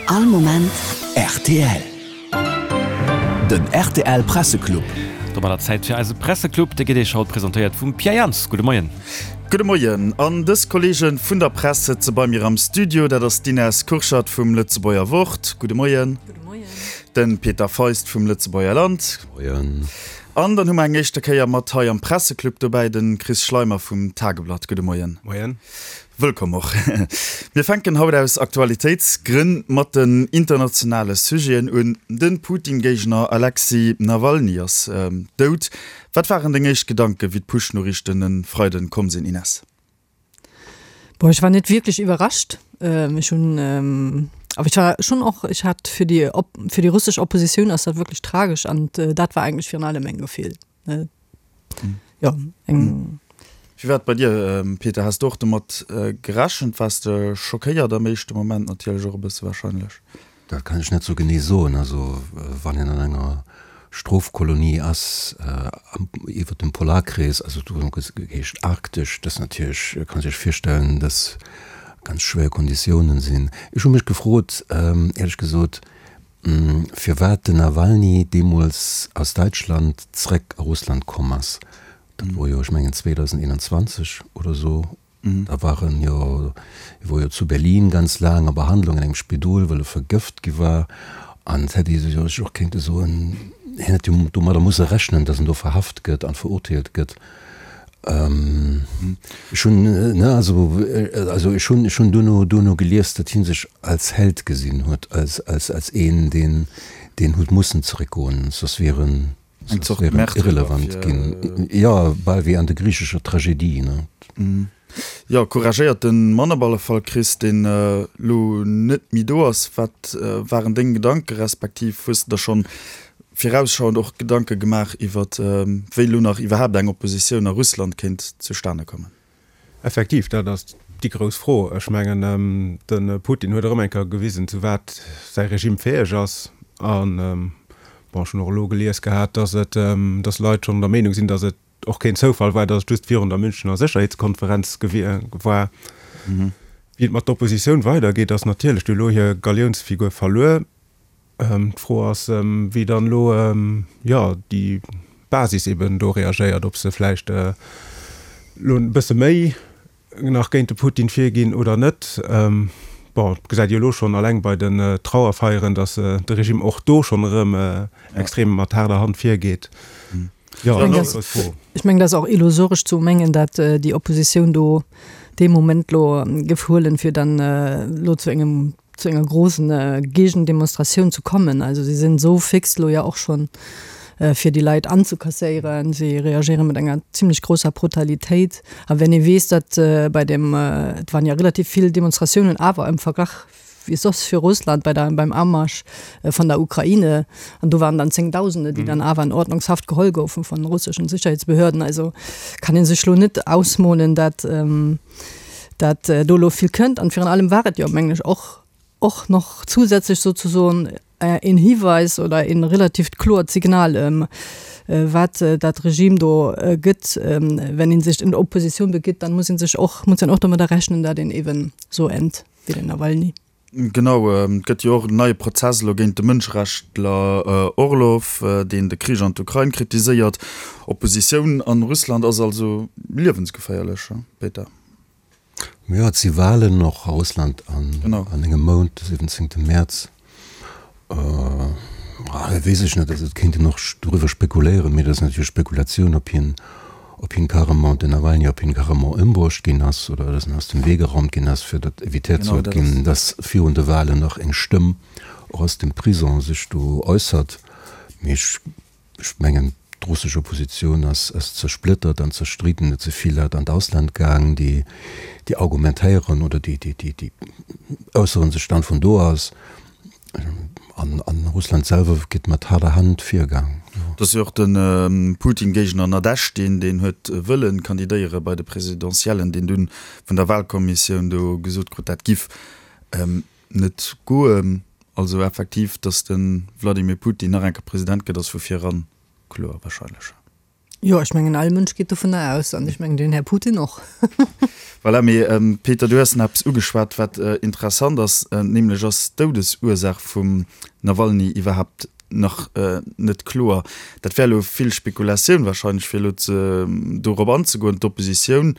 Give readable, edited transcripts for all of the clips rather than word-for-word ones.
All Moment rtl. Den rtl Presseclub. Domadder Zäit fir eise Presseclub. Dee gëtt Iech haut presentéiert vum Pierre Jans. Gudde Moien. Gudde Moien. An dës Kolleege vun der Press sëtze bei mir am Studio. Dat ass d'Ines Kurschat vum Lëtzebuerger Wort. Gudde Moien. Gudde Moien. De Peter Feist vum Lëtzebuerger Land. Moien. An dann hu mer eng éischte Kéier mat hei am Presseclub dobäi de Chris Schleimer vum Tageblatt. Gudde Moien. Moien. Wëllkomm och. Mir fänken haut aus Aktualitéitsgrënn mat den internationale Sujeten un. De Putin-Géigner Alexej Nawalny ass dout. Wat waren deng éischt Gedanken, wéi d'Push-Noriichten e Freiden komm sinn, Ines? Bon, ech war net wierklech iwwerrascht. Ech hunn, awer ech war schonn och, ech hat fir déi, fir déi russesch Oppositioun ass dat wierklech tragesch an dat war eigentlech virun allem meng Gefill. Jo, eng. Wéi war et bei dir, Peter? Has de och domat gerechent? Waars de schockéiert am éischte Moment natierlech och e bësse warscheinlech? Dat kann ech net sou genee soen. Also wann een an enger Strofkolonie ass iwwer dem Polarkrees, also do geheescht arktesch, dat ass natierlech, kann sech virstellen, dass ganz schwéier Konditiounen sinn. Ech hu mech gefrot, éierlech gesot, firwat den Nawalny deemools aus Däitschland zréck a Russland komm ass. Dat wor jo, ech mengen 2021 oder sou, da war en jo, e wor jo zu Berlin ganz laang a Behandlung an engem Spidol, well e vergëft gi war. An et hätt ee sech och kéinte soen, hien hätt jo domadder musse rechnen, datt en do verhaft gëtt an verurteelt gëtt. Ech hunn, ne, also, also ech hunn, ech hunn duerno, duerno gelies, datt hie sech als Held gesinn huet, als, als, als een, deen, deen huet mussen zeréckgoen, soss wier en, Eng Zort Märtyrer irrelevant ginn. Jo, bal wéi an der griichescher Tragedie, ne. Jo, couragéierte Mann op alle Fall, Chris, deen elo net méi do ass. Wat waren deng Gedanken, respektiv hues de der schonn virausschauend och Gedanke gemaach iwwer wéi elo nach iwwerhaapt eng Oppositioun a Russland kéint zustane kommen? Effektiv, dat ass déi grouss Fro. Ech mengen, de Putin huet erëm eng Kéier gewisen, zu wat säi Regime fäeg ass. An, bon, ech hunn och elo gelies gehat, datt et, datt Leit schonn der Meenung sinn, datt et och keen Zoufall war, datt et just virun der Münchener Sécherheetskonferenz war. Wéi et mat der Oppositioun weidergeet, ass natierlech, déi hu elo hir Galiounsfigur verluer. D'Fro ass, wéi dann elo, jo, déi Basis eben do reagéiert, ob se vläicht elo e bësse méi nach géint de Putin virginn oder net. Bon, et gesäit ee jo elo schonn alleng bei den Trauerfeieren, datt de Regime och do schonn erëm extrem mat haarder Hand virgeet. Jo, dat ass eng grouss Fro. Ech mengen, dat ass och illusoresch ze mengen, datt déi Oppositioun do dee Moment elo géif huelen, fir dann elo zu engem zu enger großen Gegendemonstratioun zu kommen. Also si sinn esou fix elo ja och schonn, fir déi Leit anzekasséieren. Si reagéiere mat enger zimlech grousser Brutalitéit. A wenn ee weess, datt bei dem, et waren ja relativ vill Demonstratiounen awer im Verglach wéi soss fir Russland bei der, beim Amarsch vun der Ukraine, an do waren dann Zéngdausende, déi dann awer an Ordnungshaft geholl goufen von russeschen Sicherheitsbehörden. Also kann ee sech elo net ausmolen, datt, dat do elo vill kënnt. An virun allem war et jo, mengen ech, och och noch zusätzlech sozusoen een Hiweis oder een relativt kloert Signal, wat dat Regime do gëtt. Wenn een sech in Opposition begitt, dann muss een sech och, muss een och domadder rechnen, dat een eben so ennt wéi den Nawalny. Genau, et gëtt jo och en neie Prozess elo géint de Mënscherechtler Orlov, deen de Krich an d'Ukrain kritiséiert. Oppositioun an Russland ass also liewensgeféierlech, Peter? Jo, et si Walen och a Russland an engem Mount, de 17 Mäerz. Weess ech net, also et kéint een och doriwwer spekuléieren, mee dat ass natierlech Spekulatioun, ob hien, ob hien carrement, den Nawalny, ob hien carrement ëmbruecht ginn ass oder dass en aus dem Wee geraumt ginn ass, fir datt evitéiert soll ginn, dass virun de Walen nach eng Stëmm och aus dem Prison sech do äussert. Mee ech, ech mengen, d'russesch Oppositioun ass, ass zersplittert an zerstridden. Et si vill Leit an d'Ausland gaang, déi, déi argumentéieren oder déi, déi, déi, déi äussere sech dann vun do aus. An Russland selwer gëtt mat haarder Hand virgaang. Et ass jo och de Putin-Géigner Nadezhdin, deen huet wëlle kandidéiere bei de Presidentiellen, deen dunn vun der Wahlkommissioun do gesot krut, dat giff net goen. Also effektiv, datt de Wladimir Putin nach eng Kéier President gëtt, ass vu vir eran kloer wahrscheinlech. Jo, ech mengen all Mënsch geet dovunner aus an ech mengen den Här Putin och. Voilà, mee Peter, du hues nach eppes ugeschwat, wat interessant ass, nämlech ass d'Doudesursaach vum Nawalny iwwerhaapt nach net kloer. Dat wär elo vill Spekulatioun wahrscheinlech, fir elo ze dorop anzegoen. D'Oppositioun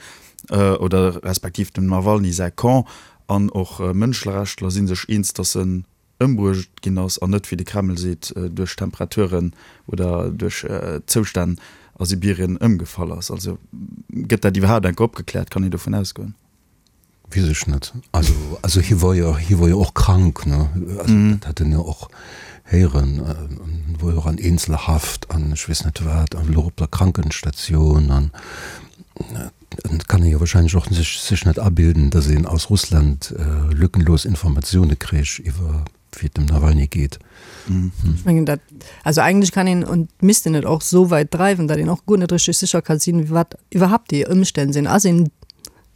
oder respektiv dem Nawalny säi Camp an och Mënschlerechtler si sech eens, datt en ëmbruecht ginn ass an net, wéi de Kreml seet, duerch Temperaturen oder duerch Zoustänn a Sibirien ëmgefall ass. Also gëtt dat iwwerhaapt enke opgekläert? Kann een dovun ausgoen? Weess ech net. Also, also hie wor jo, hie wor jo och krank, ne? Also dat hat een jo och héieren. En wor jo och an Eenzelhaft an ech weess net wat an elo op der Krankenstatioun an et kann ee jo wahrscheinlech och sech, sech net abilden, datt een aus Russland lückenlos Informatioune kréich iwwer wéi et dem Nawalny geet. Ech mengen dat, also eigentlech kann een und misst een et och esou wäit dreiwen, datt een och guer net richteg sécher ka sinn, wat iwwerhaapt déi Ëmstänn sinn. Ass een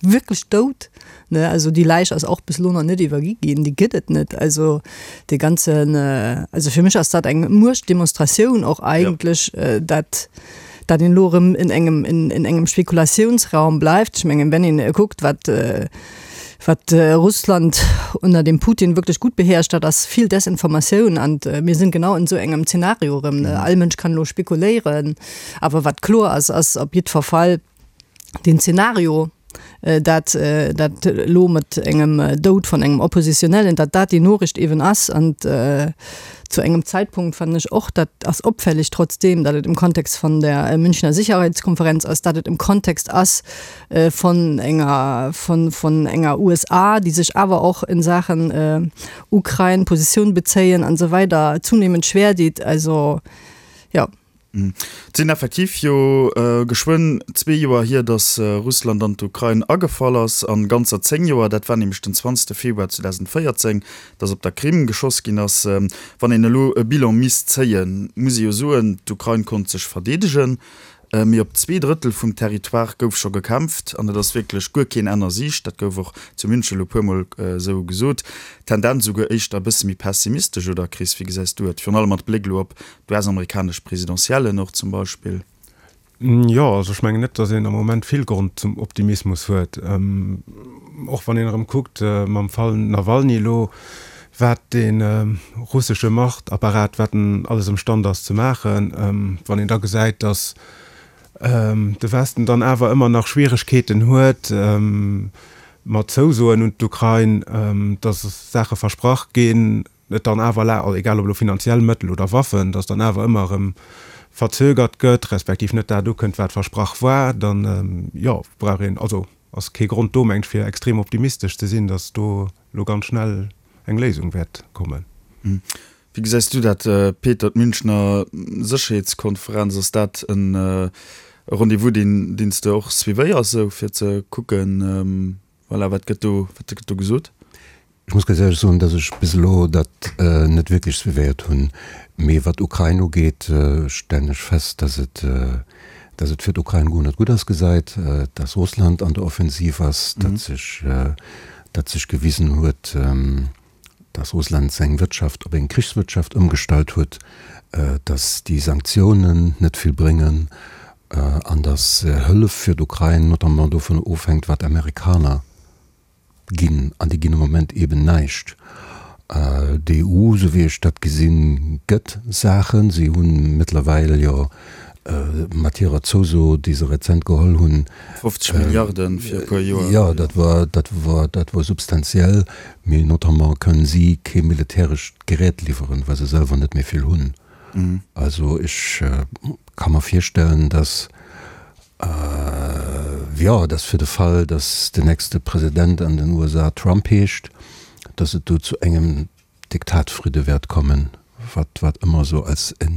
wierklech dout? Ne, also déi Läich ass och bis elo nach net iwwergi ginn, déi gëtt et net. Also dee ganzen, also fir mech ass dat eng Muechtdemonstratioun och eigentlech, dat dat een elo erëm in engem, in, in engem Spekulatiounsraum bleift. Ech mengen, wenn een kuckt, wat wat Russland ënner dem Putin wierklech gutt beherrscht, dat ass vill Desinformatioun an mir sinn genau an esou engem Zeenario erëm. All Mënsch kann elo spekuléieren, awer wat kloer ass, ass op jiddwer Fall den Zeenario, dat dat elo mat engem Doud vun engem Oppositionellen, dat dat déi Noriicht eeben ass an zu engem Zeitpunkt fannen ech och, dat ass opfällig trotzdeem, dat et im Kontext von der Münchner Sicherheitskonferenz ass, dat et im Kontext ass von enger von von enger USA, déi sech awer och in Saachen Ukrain Positioun bezéien an esou weider zunehmend schwer deet. Also jo. Et sinn effektiv jo geschwënn zwee Joer hier, datt Russland an d'Ukrain agefall ass, an ganzer 10 Joer, dat war nämlech den 20 Februar 2014, datt op der Krim geschoss ginn ass. Wann een elo e Bilan misst zéien, muss ee jo soen, d'Ukrain konnt sech verdeedegen, mee op 2/3 vum Territoire gouf scho gekämpft an et ass wierklech guer keen Enn a Siicht. Dat gouf och zu München elo e puermol esou gesot. Tendenz esouguer éischter e bësse méi pessimistesch, oder Chris, wéi gesäis du et, virun allem mat Bléck elo op D'US-amerikanesch Presidentiellen och zum Beispill. Jo, also ech mengen net, datt een am Moment vill Grond zum Optimismus huet. Och wann een erëm kuckt mam Fall Nawalny elo, wat dee russesche Machtapparat, wat en alles ëmstand ass ze maachen, wann een da gesäit, datt de Westen dann awer ëmmer nach Schwieregkeeten huet mat Zousoen un d'Ukrain, datt Saache versprach ginn, et dann awer, egal ob elo finanziell Mëttel oder Waffen, datt dann awer ëmmer erëm verzögert gëtt, respektiv net dat ukënnt, wat versprach war, dann, jo, brauch een, also ass kee Grond do, mengt ech, fir extrem optimistesch ze sinn, datt do elo ganz schnell eng Léisung wäert kommen. Wéi gesäis du dat, Peter, d'Münchner Sécherheetskonferenz, ass dat e Rendez-vous, deen deen s de och suivéiers, esou fir ze kucken, voilà, wat gëtt do, wat gëtt do gesot? Ech muss ganz éierlech soen, dass ech bis elo dat net wierklech suivéiert hunn. Mee wat d'Ukrain ugeet, stellen ech fest, dass et, dass et fir d'Ukrain guer net gutt ausgesäit, dass Russland an der Offensiv ass, datt sech, datt sech gewisen huet, dass Russland seng Wirtschaft op eng Krichswirtschaft ëmgestallt huet, dass déi Sanktiounen net vill bréngen an dass Hëllef fir d'Ukrain notamment dovun ofhänkt, wat d'Amerikaner ginn, an déi ginn am Moment eeben näischt. D'EU, esou wéi ech dat gesinn, gëtt Saachen. Si hu mëttlerweil jo mat hirer Zouso, déi se rezent geholl hunn, 50 Milliarden fir e puer Joer. Jo, dat war, dat war, dat war substantiell. Mee notamment kënnen si kee militärescht Gerät liwweren, well se selwer net méi vill hunn. Also ech ka mer virstellen, datt Jo, et ass fir de Fall, datt den nächste President an den USA Trump heescht, datt et do zu engem Diktatfridde wäert kommen, wat wat ëmmer esou als e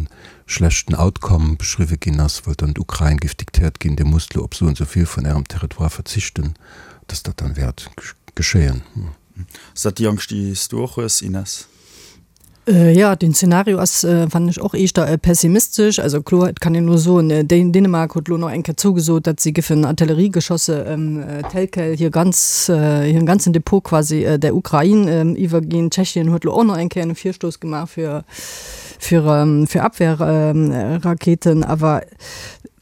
schlechten Outcome beschriwwe ginn ass, well dann d'Ukrain géif diktéiert ginn, Dir musst elo op esou an esou vill vun Ärem Territoire verzichten, datt dat dann wäert geschéien. Ass dat déi Angscht, déi s du och hues, Ines? Jo, den Zeenario ass, fannen ech, och eeschter pessimistesch. Also kloer, et kann een elo soen, Dänemark huet elo nach eng Kéier zougesot, datt si géifen Artilleriegeschosse tel quel hir ganz, hiren ganzen Depot quasi der Ukrain iwwerginn. Tschechien huet elo och nach eng Kéier e Virstouss gemaach fir, fir, fir Abwehrraketen. Awer.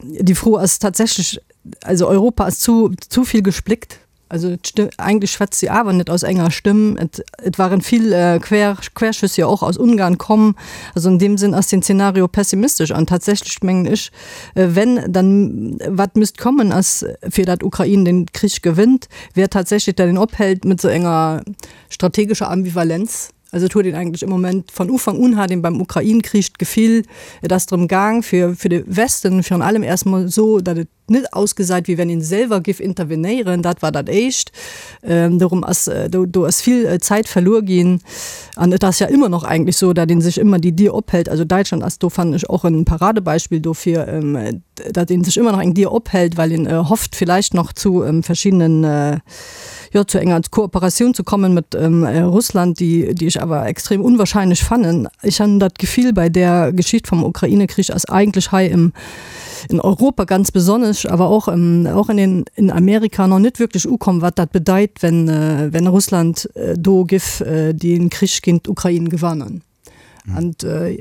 déi Fro ass tatsächlech, also Europa ass zu, zu vill gespléckt. Also eigentlech schwätzt si awer net aus enger Stëmm. Et, et waren vill Quer, Querschüss jo och aus Ungarn komm. Also an deem Sënn ass den Zeenario pessimistesch an tatsächlech mengen ech, wenn dann wat müsst kommen ass, fir dat Ukrain den Krich gewënnt, wär tatsächlech, dat een ophält mat esou enger strategescher Ambivalenz. Also et huet een eigentlech am Moment, von Ufank un hat een beim Ukrain-Krich d'Gefill, et ass drëm gaang fir fir de Westen virun allem erst mol esou, datt et net ausgesäit wéi wenn een selwer giff intervenéieren, dat war dat éischt. Dorum ass do do ass vill Zäit verluer ginn an et ass ja ëmmer nach eigentlech esou, datt een sech ëmmer déi Dier ophält. Also Däitschland ass do fannen ech och en Paradebeispill dofir, datt een sech ëmmer nach eng Dier ophält, well een hofft villäicht nach zu verschiddenen, jo, zu enger Kooperatioun ze kommen mat Russland, déi, déi ech awer extrem unwahrscheinlech fannen. Ech han dat Gefill bei där Geschicht vum Ukraine-Krich ass eigentlech hei im, in Europa ganz besonnesch, awer och, och in den, in Amerika noch net wierklech ukomm, wat dat bedeit, wenn, wenn Russland do giff den Krich géint d'Ukrain gewannen. An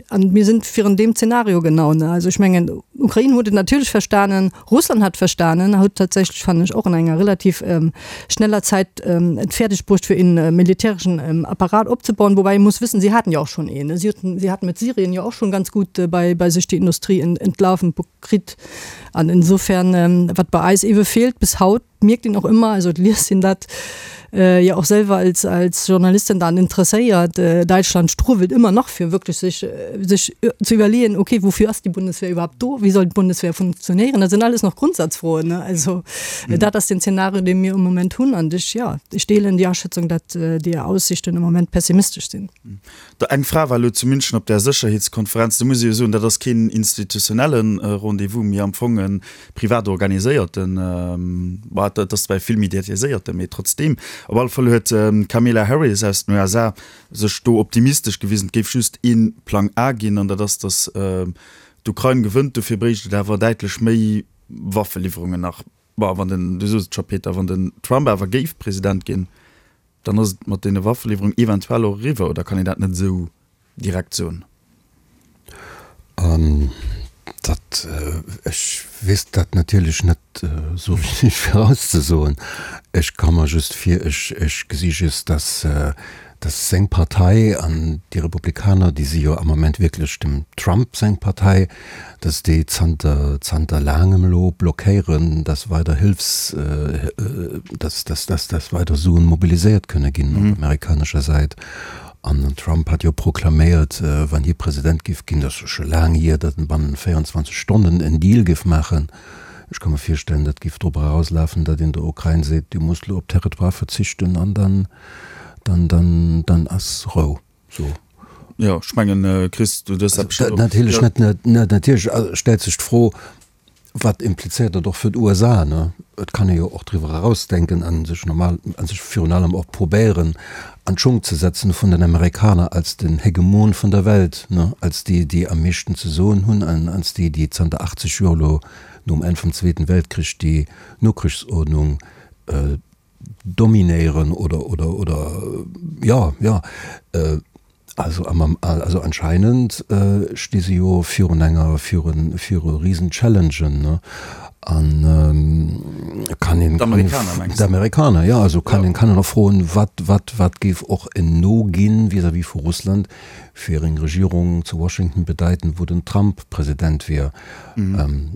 an mir sinn virun deem Zeenario genau. Ne? Also ech mengen, Ukrain huet et natierlech verstanen, Russland hat verstanen, huet tatsächlech, fannen ech, och an enger relativ ähm, schneller Zäit ähm, et fäerdeg bruecht, fir een äh, militärischen ähm, Apparat opzebauen. Wobei ee muss wëssen, si haten jo och schonn een. Ne? Si haten, si haten mit Syrien jo och schonn ganz gut äh, bei, bei sech déi Industrie ent, entlaufen kritt. An insofern, ähm, wat bei eis ewe feelt bis haut, mierkt een och ëmmer, also et liest een dat jo och selwer als, als Journalistin dann interesséiert, Däitschland struwelt ëmmer nach fir wierklech sech, sech ze iwwerleeën, okay, wofür ass déi Bundeswehr überhaupt do, wéi soll d'Bundeswehr funktionéieren? Dat sinn alles nach Grundsatzfroen, ne? Also dat ass den Zeenario, dee mir um Moment hunn an ech, jo, ech deelen déi Aschätzung, datt déi Aussichten am Moment pessimistesch sinn. Eng Fra war elo zu München op där Sécherheetskonferenz. Do muss ee jo soen, dat ass keen institutionelle Rendez-vous, mee am Fong e privat organiséierten, bon, dat ass zwar e vill mediatiséierten, mee trotzdeem. Op alle Fall huet d'Kamala Harris aus den USA sech do optimistesch gewisen, et géif just ee Plang A ginn, an dat ass, datt d'Ukrain gewënnt. Dofir bréicht et awer däitlech méi Waffeliwwerungen nach. Bon, wann den, du sos et scho Peter, wann den Trump awer géif President ginn, dann ass et mat deene Waffeliwwerungen eventuell och eriwwer, oder kann een dat net esou direkt soen? Dat, ech weess dat natierlech net esou richteg virauszesoen. Ech ka mer just vir, ech, ech gesi just, dass, dass seng Partei an déi Republikaner, déi si jo am Moment wierklech dem Trump seng Partei, dass déi zanter, zanter laangem elo blockéieren, dass weider Hilfs, dass, dass, dass, dass weider Suen mobiliséiert kënne ginn op amerikanescher Säit. An den Trump hat jo proklaméiert, wann hie President géif ginn, dat ass jo scho laang hier, datt en bannent 24 Stonnen en Deal géif maachen. Ech ka mer virstellen, dat géif drop erauslafen, datt een der Ukrain seet, du muss elo op Territoire verzichten an dann, dann, dann, dann ass Rou. So. Jo, ech mengen, Chris, du hues dat bestimmt och. Natierlech net, net, natierlech stellt sech d'Fro, Wat implizéiert dat och fir d'USA? Ne? Et kann ee jo och driwwer erausdenken a sech normal, a sech virun allem och probéieren an d'Schung ze setzen vun den Amerikaner als den Hegemon vun der Welt, ne? Als déi, déi am meeschten ze soen hunn an als déi, déi zanter 80 Joer elo nom Enn vum Zweeten Weltkrich déi Nokrichsordnung dominéieren oder, oder, oder, jo, jo. Also, also anscheinend sti se jo virun enger, virun, viru risen Challengen, ne? An kann een, D'Amerikaner mengs de? D'Amerikaner, jo. Also kann een, kann een och froen, wat, wat, wat géif och en No ginn vis-à-vis vu Russland fir eng Regierung zu Washington bedeiten, wou den Trump President wier.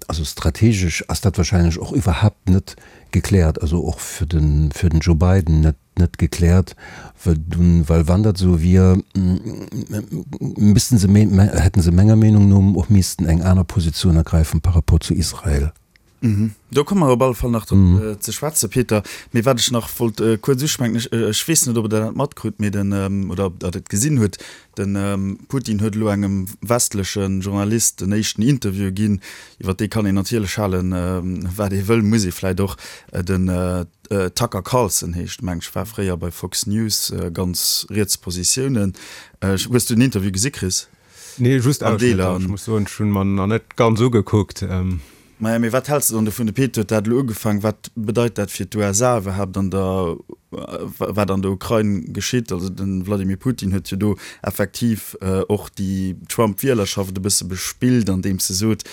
Also strategesch ass dat wahrscheinlech och iwwerhaapt net gekläert, also och fir den, fir den Joe Biden net, net gekläert, well dunn, well wann dat esou wier, missten se, hätten se menger Meenung no och missten eng aner Positioun ergräifen par rapport zu Israel. Do komme mer op alle Fall nach drop ze schwätzen, Peter. Mee wat ech nach wollt kuerz uschwänken, ech, ech weess net, ob Der dat matkrut, mee den, oder ob Der et gesinn hutt, De Putin huet elo engem westleche Journalist den éischten Interview ginn. Iwwer dee kann een natierlech halen, wat ee wëll, muss ee vläit och. Den Tucker Carlson heescht, meng ech, war fréier bei Fox News, ganz riets Positiounen. Hues du den Interview gesi, Chris? Nee, just Ausschnëtter. Ech muss soen, ech hunn mer nach net ganz ugekuckt. Maja, mee wat häls de dann dovun? De Pete huet dat elo ugefaang. Wat bedeit dat fir d'USA iwwerhaapt an der, wat an der Ukrain geschitt? Also de Wladimir Putin huet jo do effektiv och déi Trump-Wielerschaft e bësse bespillt, andeems e sot,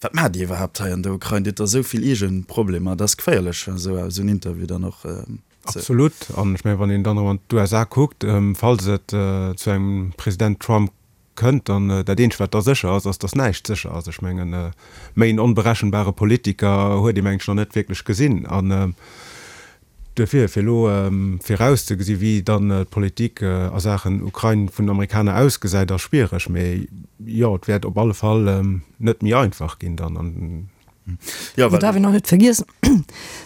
Wat maacht Dir iwwerhaapt hei an der Ukrain? Dir hutt der esou vill eege Problemer. Dat ass geféierlech, esou en Interview dann och ze. Absolut. An ech mengen, wann een dann erëm an d'USA kuckt, falls et zu engem President Trump kënnt, dann dat eenzegt wat da sécher ass, ass, datt näischt sécher ass. Ech mengen, méi en onberechenbare Politiker huet ee mengen ech nach net wierklech gesinn. An duerfir, fir elo virauszegesi wéi dann d'Politik a Saachen Ukrain vun den Amerikaner ausgesäit, ass schwiereg. Mee jo, et wäert op alle Fall net méi einfach ginn dann. An Jo, well. Et darf een och net vergiessen,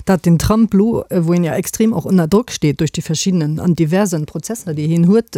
datt den Trump elo, wou een jo extrem och ënner Drock steet duerch déi verschiddenen an diversen Prozesser, déi hien huet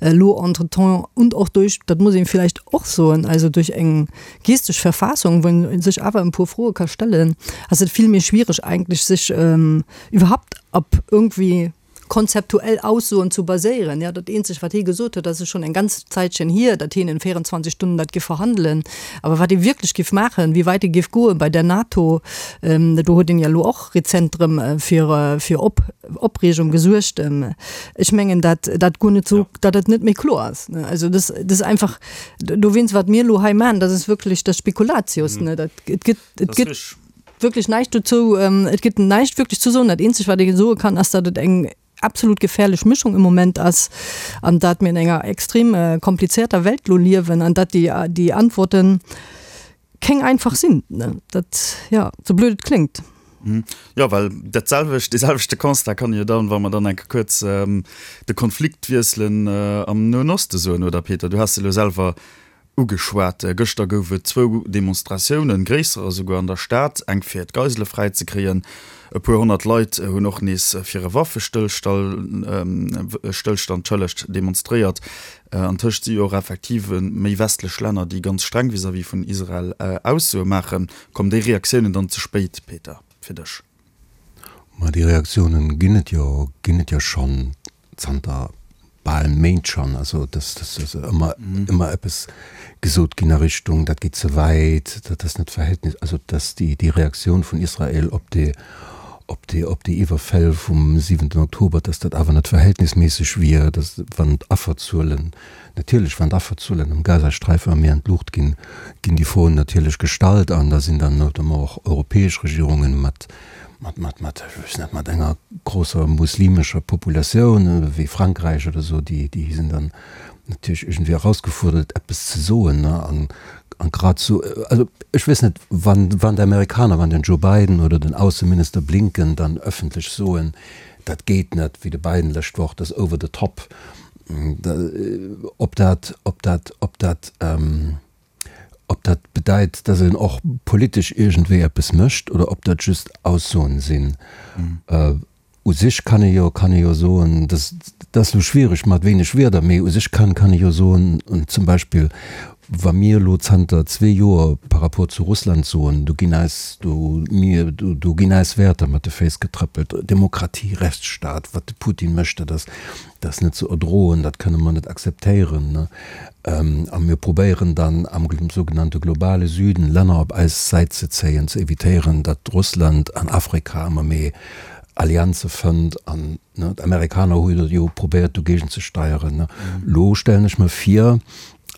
elo entretemps und och duerch, dat muss een villäicht och soen, also duerch eng geestesch Verfassung, wou een sech awer en puer Froe ka stellen, ass et vill méi schwiereg eigentlech sech iwwerhaupt op irgendwie konzeptuell Aussoen zu baséieren. Jo, dat eenzegt, wat hie gesot huet, dat ass schonn eng ganz Zäitchen hier, datt hien in 24 Stunden dat giff verhandelen. Awer wat e wierklech giff maachen, wéi wäit e giff goen bei der NATO, do huet en jo elo och rezent erëm fir fir Op Opreegung gesuergt. Ech mengen, dat dat guer net esou, datt et net méi kloer ass. Also dat ass einfach, dowéinst, wat mir elo hei maachen, dat ass wierklech, dat ass Spekulatius. Dat et gëtt, et gëtt. Wierklech näischt dozou. Et gëtt näischt wierklech ze soen. Dat eenzegt, wat ee soe kann, ass, datt et eng absolut gefährlech Mischung im Moment ass an datt mir an enger extrem komplizierter Welt elo liewen an datt déi, déi Antworten keng einfach sinn. Dat, jo, sou blöd et kléngt. Jo, well dat selwecht, dee selwechte Constat kann ee jo dann, wa mer dann eng Kéier kuerz de Konflikt wiesselen, am Noen Oste soen, oder Peter? Du has se elo selwer Ugeschwat. Gëschter gouf et zwou Demonstratiounen, gréisserer esouguer an der Stad, eng fir d'Geisele fräi ze kréien. E puer 100 Leit hunn och nees fir e Waffestëllstand demonstréiert. Antëscht si jo och effektiv méi westlech Länner, déi ganz streng vis-à-vis vun Israel Aussoe maachen. Kommen déi Reaktiounen dann ze spéit, Peter, fir dech? Ma déi Reaktiounen ginn et jo, ginn et jo schonn zanter bal Méint schonn, also dass dass ëmmer ëmmer eppes gesot ginn a Richtung, dat geet ze wäit, dat ass net verhältnis, also dass déi déi Reaktioun vun Israel op déi op déi op déi Iwwerfäll vum siwenten Oktober, dass dat awer net verhältnisméisseg wier, dass wann d'Afferzuelen, natierlech wann d'Afferzuelen am Gazasträifen méi an d'Luucht ginn, ginn déi Froen natierlech gestallt an da sinn dann notamment och europäesch Regierungen mat mat, mat, mat, ech weess net, mat enger grousser muslimescher Populatioun wéi Frankräich oder esou, déi, déi sinn dann natierlech iergendwéi erausgefuerdert, eppes ze soen, ne, an, an grad esou, also ech weess net, wann, wann d'Amerikaner, wann den Joe Biden oder den Ausseminister Blinken dann ëffentlech soen, dat geet net, wéi de Biden d'lescht Woch, dat ass over the top, ob dat, ob dat, ob dat, Ob dat bedeit, dass een och politesch iergendwéi eppes mécht oder ob dat just Aussoen sinn. U sech kann ee jo, kann ee jo soen, dass, dat ass elo schwiereg mat wéineg Wierder, mee u sech kann, kann ee jo soen, zum Beispill wa mir elo zanter zwee Joer par rapport zu Russland soen, do ginn eis, do, mir, do ginn eis Wäerter mat de Féiss getrëppelt, Demokratie, Rechtsstaat, wat de Putin mécht, dat ass, Dat ass net ze erdroen, dat kënne mer net akzeptéieren. A mir probéieren dann am sougenannte globale Süden Länner op eis Säit ze zéien, ze evitéieren, datt Russland an Afrika ëmmer méi Allianze fënnt. An d'Amerikaner hu jo probéiert dogéigent ze steieren. Elo stellen ech mer vir,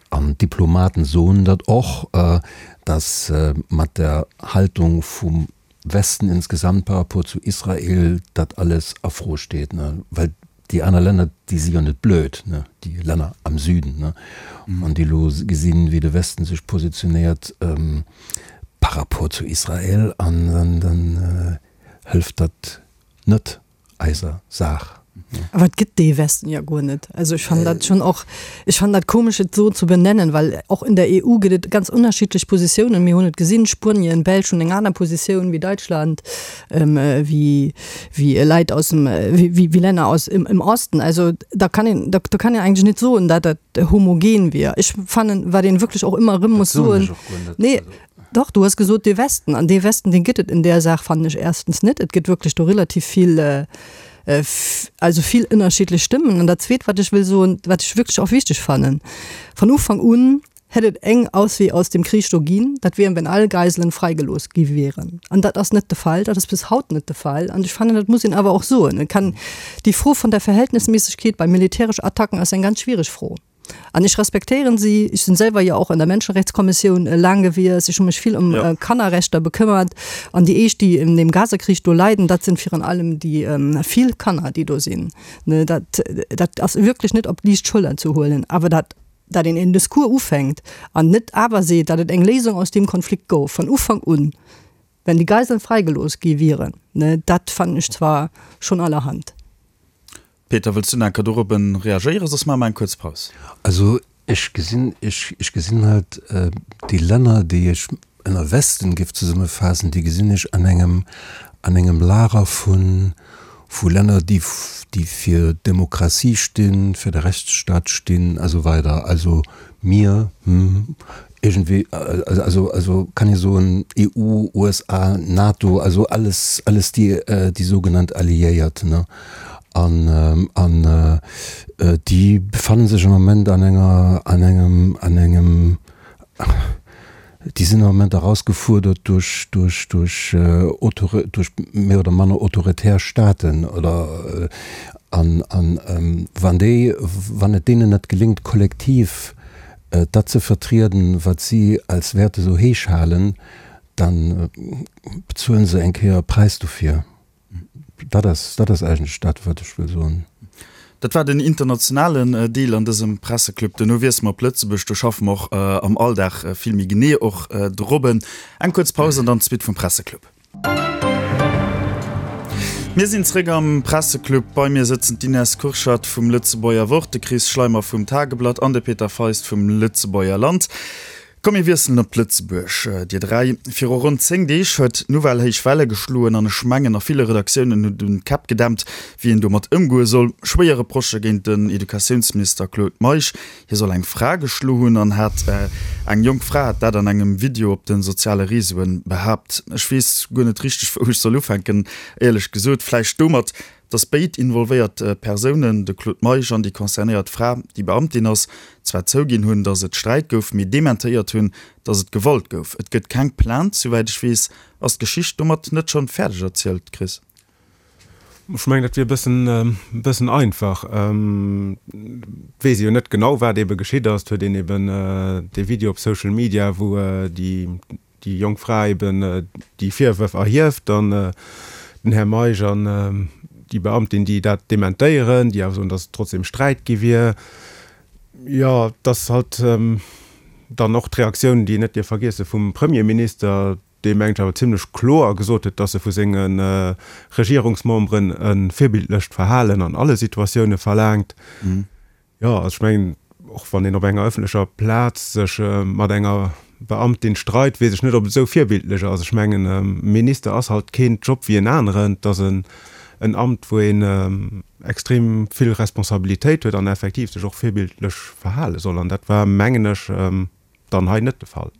an d'Diplomaten soen dat och, datt mat der Haltung vum Westen insgesamt par rapport zu Israel dat alles a Fro steet, ne, well déi aner Länner, déi si jo net blöd, ne, déi Länner am Süden, ne, an déi elo gesinn, wéi de Westen sech positionéiert par rapport zu Israel, an dann, dann hëlft dat net. eiser Saach. Awer et gëtt dee Westen jo guer net. Also ech fannen dat schonn och, ech fannen dat komesch et esou ze benennen, well och in der EU gëtt et ganz unterschiedlech Positiounen. Mir hunn et gesinn, Spuenien, Belsch hunn eng aner Positioun wéi Deutschland, wéi wéi Leit aus dem, wéi wéi Länner aus im im Osten. Also da kann een, da do kann een eigentlech net soen, dat dat homogen wier. Ech fannen, wat een wierklech och ëmmer erëm muss soen, nee, Dach, du hues gesot dee Westen. An dee Westen, dee gëtt et in där Saach, fannen ech, erstens net. Et gëtt wierklech do relativ vill, also vill ënnerschiddlech Stëmmen. An dat Zweet, wat ech wëll soen, wat ech wierklech och wichteg fannen, Von Ufank un hätt et eng Auswee aus dem Krich do ginn, dat wier, wenn all Geiselen freigelooss gi wieren. An dat ass net de Fall, dat ass bis haut net de Fall. An ech fannen, dat muss een awer och soen. Et kann, déi Fro von der Verhältnismäßigkeit bei militäresch Attacken ass eng ganz schwiereg Fro. An ech respektéieren si. Ech sinn selwer jo och an der Menschenrechtskommissioun laang gewiescht. Ech hu mech vill ëm Kannerrechter bekëmmert. An déi éischt, déi in dem Gazakrich do leiden, dat sinn virun allem déi vill Kanner, déi do sinn. Dat, dat ass wierklech net op d'liicht Schëller ze huelen. Awer dat, dat een en Discours ufänkt an net awer seet, datt et eng Léisung aus deem Konflikt gouf von Ufank un, wenn déi Geiseln freigelooss gi wieren, dat fannen ech zwar schonn allerhand. Peter, wëlls du nach eng Kéier dorobben reagéieren, soss maache mer eng kuerz Paus. Also ech gesinn, ech, ech gesinn halt déi Länner, déi ech ënner Westen géif zesummefaassen, déi gesinn ech an engem, an engem Lager vu, vu Länner, déi, déi fir Demokratie stinn, fir de Rechtsstaat stinn a sou weider. Also mir, hm, Iergendwéi, also, also kann ee soen, EU, USA, NATO, also alles, alles déi, déi sougenannt Alliéiert, ne? An, an déi befanne sech am Moment an enger, an engem, an engem, déi sinn am Moment erausgefuerdert duerch, duerch, duerch Autori-, duerch méi oder manner autoritär Staaten oder, an, an wann déi, wann et deenen net geléngt, kollektiv dat ze vertrieden, wat si als Wäerte sou héich halen, da bezuelen se eng Kéier e Präis dofir. Dat ass, dat ass eigentlech dat, wat ech wëll soen. Dat war den internationalen Deel an dësem Presseclub. Duerno wiessele mer op Lëtzebuerg. Do schaffe mer och am Alldag vill méi genee och dorobben. Eng kuerz Paus an dann d'Suite vum Presseclub. Mir sinn zréck am Presseclub. Bei mir sëtzen d'Ines Kurschat vum Lëtzebuerger Wort, de Chris Schleimer vum Tageblatt an de Peter Feist vum Lëtzebuerger Land. Komm mir wiesselen op Lëtzebuerg, dir 3. Viru ronn 10 Deeg huet d'Nouvelle héich Welle geschloen an ech mengen a ville Redaktiounen hunn dunn d'Käpp gedämpt, wéi een domat ëmgoe soll. Schwéier Reprochë géint den Educatiounsminister Claude Meisch. Hie soll eng Fra geschlo hunn an hat eng jonk Fra hat dat an engem Video op de soziale Reseauen behaapt. Ech weess guer net richteg wou ech soll ufänken, éierlech gesot. Vläicht domat, datt béid involvéiert Persounen, de Claude Meisch an déi concernéiert Fra, déi Beamtin ass, zwar zouginn hunn, datt et Sträit gouf, mee dementéiert hunn, datt et Gewalt gouf. Et gëtt keng Plainte, souwäit ech weess. Ass d'Geschicht domat net schonn fäerdeg erzielt, Chris? Ech mengen, dat wier e bëssen, e bëssen einfach. Et weess ee jo net genau, wat eebe geschitt ass. Et huet een eeben dee Video op Social Media, wou déi, déi jonk Fra eeben déi Virwërf erhieft an den Här Meisch an déi Beamtin, déi dat dementéieren, déi awer soen, datt et trotzdem Sträit gi wier. Jo, et ass halt dann och d'Reaktioun, déi een net dierf vergiesse vum Premierminister, dee mengt awer zimlech kloer gesot huet, dass e vu senge Regierungsmemberen e virbildlecht Verhalen an alle Situatioune verlaangt. Jo, also ech mengen, och wann een op enger ëffentlecher Plaz sech mat enger Beamtin streit, weess ech net, ob et esou virbildlech ass. Ech mengen, e Minister ass halt keen Job wéi en aneren. Et ass en Amt, wou een extrem vill Responsabilitéit huet an effektiv sech och virbildlech verhale soll. An dat war, mengen ech, dann hei net de Fall.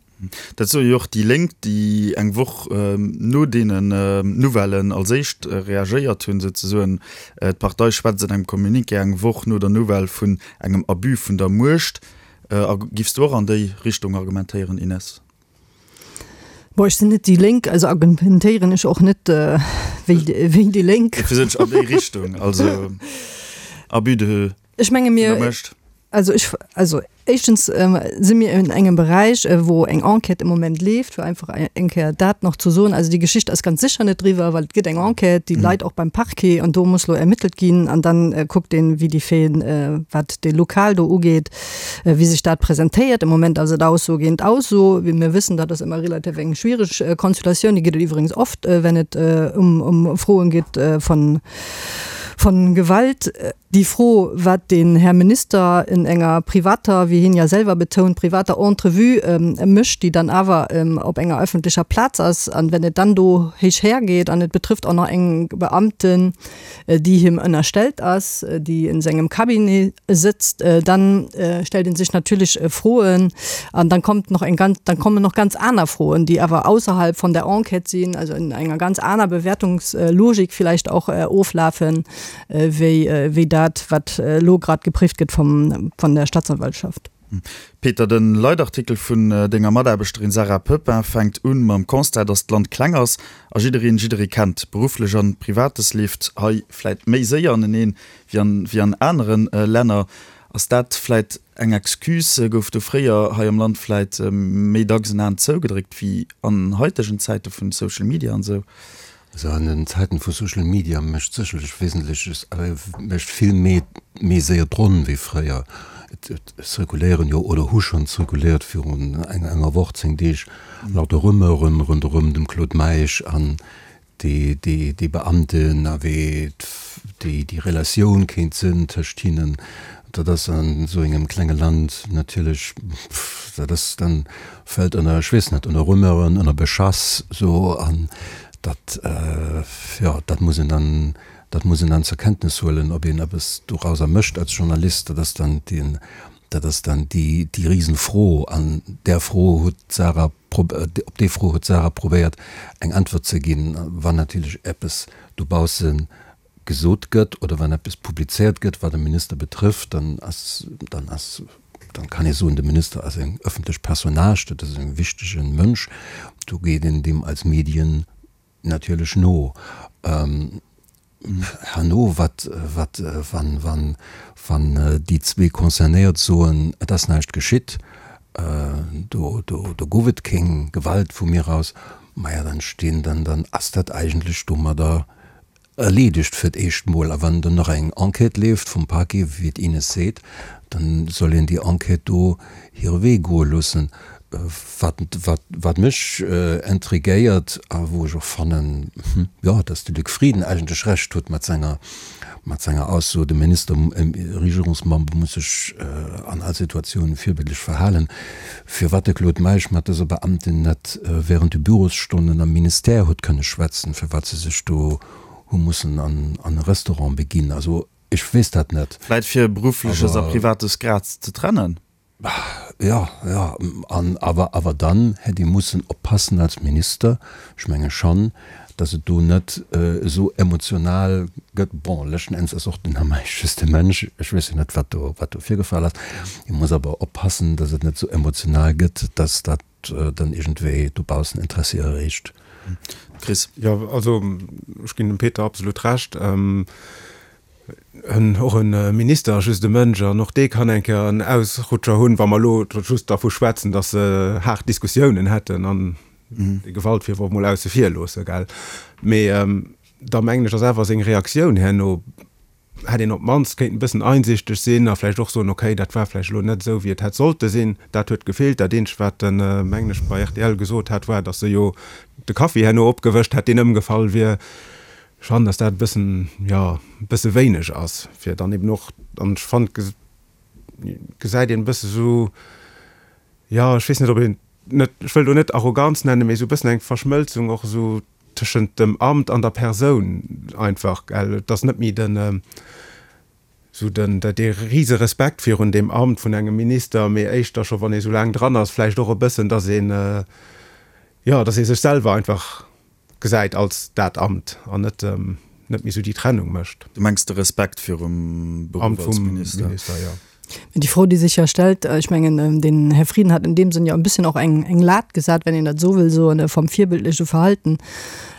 Dat soe jo och déi Lénk, déi eng Woch no deenen Nouvellen als éischt reagéiert hunn, souzesoen. D'Partei schwätzt an engem Communiqué eng Woch no der Nouvelle vun engem Abus vun der Muecht. A giffs du och an déi Richtung argumentéieren, Ines? Bon, ech sinn net déi Lénk, also argumentéieren ech och net wéi déi Lénk. Dofir sot ech an déi Richtung, also Abus de. Ech menge mir, also ech, also éischtens si mir en engem Beräich, wou eng Enquête am Moment leeft, fir einfach eng Kéier dat nach ze soen. Also déi Geschicht ass ganz sécher net eriwwer, well et gëtt eng Enquête, déi leit och beim Parquet an do muss elo ermittelt ginn an dann kuckt een, wéi déi Faiten, wat dee Lokal do ugeet, wéi sech dat presentéiert. Am Moment ass et Ausso géint Ausso. Wéi mir wëssen, dat ass ëmmer relativ eng schwiereg Konstellatioun. Déi gëtt et iwwregens oft, wenn et ëm Froen geet von von Gewalt. Déi Fro, wat den Här Minister in enger privater, wéi hien ja selwer betount, privater Entrevue mécht, déi dann awer op enger öffentlecher Plaz ass, an wenn et dann do héich hergeet an et betrifft och nach eng Beamten, déi him ënnerstellt ass, déi in sengem Cabinet sëtzt, dann stellt ee sech natierlech Froen an dann kommt noch eng ganz, dann kommen noch ganz aner Froen, déi awer ausserhalb von der Enquête sinn, also in enger ganz aner Bewertungslogik vielleicht och oflafen. Wéi dat, wat elo grad gepréift gëtt vum, vun der Staatsanwaltschaft. Peter, de Leitartikel vun denger Mataarbechterin Sarah Pepin fänkt un mam Constat, datt d'Land kleng ass a jiddereen jidderee kennt. Berufflech an Privates leeft hei vläit méi séier aneneen wéi an wéi an anere Länner. Ass dat vläit eng Excuse? Gouf do fréier hei am Land vläit méi dacks en Aen zougedréckt wéi an haitegen Zäite vun Social Media an esou? Also an den Zäiten vu Social Media mécht sécherlech wesentlech, mécht vill méi méi séier d'Ronn wéi fréier. Et zirkuléieren jo oder hu schonn zirkuléiert virun enger Woch, 10 Deeg lauter Rumeuren ronderëm dem Claude Meisch an déi déi Beamten a wéi déi déi Relatioun kéint sinn tëscht hinnen. Dat ass an esou engem klenge Land natierlech, dat ass dann fält ënner, ech weess net, ënner Rumeuren, ënner Beschass esou an dat, jo, dat muss een dann, dat muss een dann zur Kenntnis huelen. Ob een eppes dorauser mécht als Journalist, dat ass dann deen, dat ass dann déi, déi Risenfro. An där Fro huet d'Sarah, op déi Fro huet d'Sarah probéiert eng Äntwert ze ginn. Wann natierlech eppes dobausse gesot gëtt oder wann eppes publizéiert gëtt, wat e Minister betrëfft, dann ass, dann ass, dann kann ee soen, de Minister ass eng ëffentlech Personnage, dat ass e wichtege Mënsch, do geet een deem als Medien natierlech no. Herno, wat, wat, wann, wann, wann déi zwee Concernéiert soen, et ass näischt geschitt, do, do, do gouf et keng Gewalt vu mir aus, maja, dann stinn, dann, dann ass dat eigentlech domadder Erleedegt fir d'éischt mol. A wann dann nach eng Enquête leeft vum Parquet, wéi d'Ines seet, dann soll een déi Enquête do hire Wee goe loossen. Wat, wat, wat mech intriguéiert a wou ech och fannen, jo, dass de Luc Frieden eigentlech Recht huet mat senger, mat senger Ausso, de Minister, e Regierungsmember muss sech an all Situatioun virbildlech verhalen, Firwat de Claude Meisch mat dëser Beamtin net während de Bürosstonnen am Ministère huet kënne schwätzen, firwat se sech do hu mussen an e Restaurant beginn, also ech weess dat net. Vläit fir Beruffleches a Privates grad ze trennen? Jo, jo, an awer, awer dann hätt ee mussen oppassen als Minister, ech menge schonn, dass et do net esou emotional gëtt. Bon, leschten Enns ass och den Här Meisch just e Mënsch, ech weess jo net, wat do, wat do virgefall ass. Ee muss awer oppassen, dass et net esou emotional gëtt, dass dat dann iergendwéi dobaussen Interessi erreegt. Chris. Jo, also ech ginn dem Peter absolut Recht. Och e Minister ass just e Mënsch an och dee kann eng Kéier en Ausrutscher hunn, wa mer elo just dervu schwätzen, dass se haart Diskussiounen hätten an de Gewaltvirworf mol ausse vir loosse, gell. Mee da mengen ech, ass awer seng Reaktioun herno, hätt een op d'mannst kéinten e bëssen einsichteg sinn a vläicht och soen, okay, dat war vläicht elo net esou, wéi et hätt sollte sinn, dat huet gefeelt. Dat eenzegt, wat en, mengen ech, bei rtl gesot hat, war, datt se jo de Kaffi herno opgewëscht hätt, deen ëmgefall wier. Ech fannen, datt dat e bëssen, jo, e bësse wéineg ass, fir dann eben och, an ech fannen, gesäit een e bësse sou, jo, ech weess net, ob een net, ech wëll do net Arroganz nennen, mee esou e bëssen eng Verschmëlzung och esou tëschent dem Amt an der Persoun einfach, gell. Et ass net méi den, esou den, dee rise Respekt virun deem Amt vun engem Minister, mee éischter scho wann ee sou laang dran ass, vläicht och e bëssen, datt een, jo, datt ee sech selwer einfach gesäit als dat Amt an net, net méi esou déi Trennung mécht. Du mengs de Respekt virum Beruff als Minister? Minister, jo. Mä déi Fro, déi sech jo stellt, ech mengen, den Här Frieden hat in deem Sënn jo e bësschen och eng, eng Lat gesat, wenn een dat esou wëll soen, vom virbildleche Verhalten.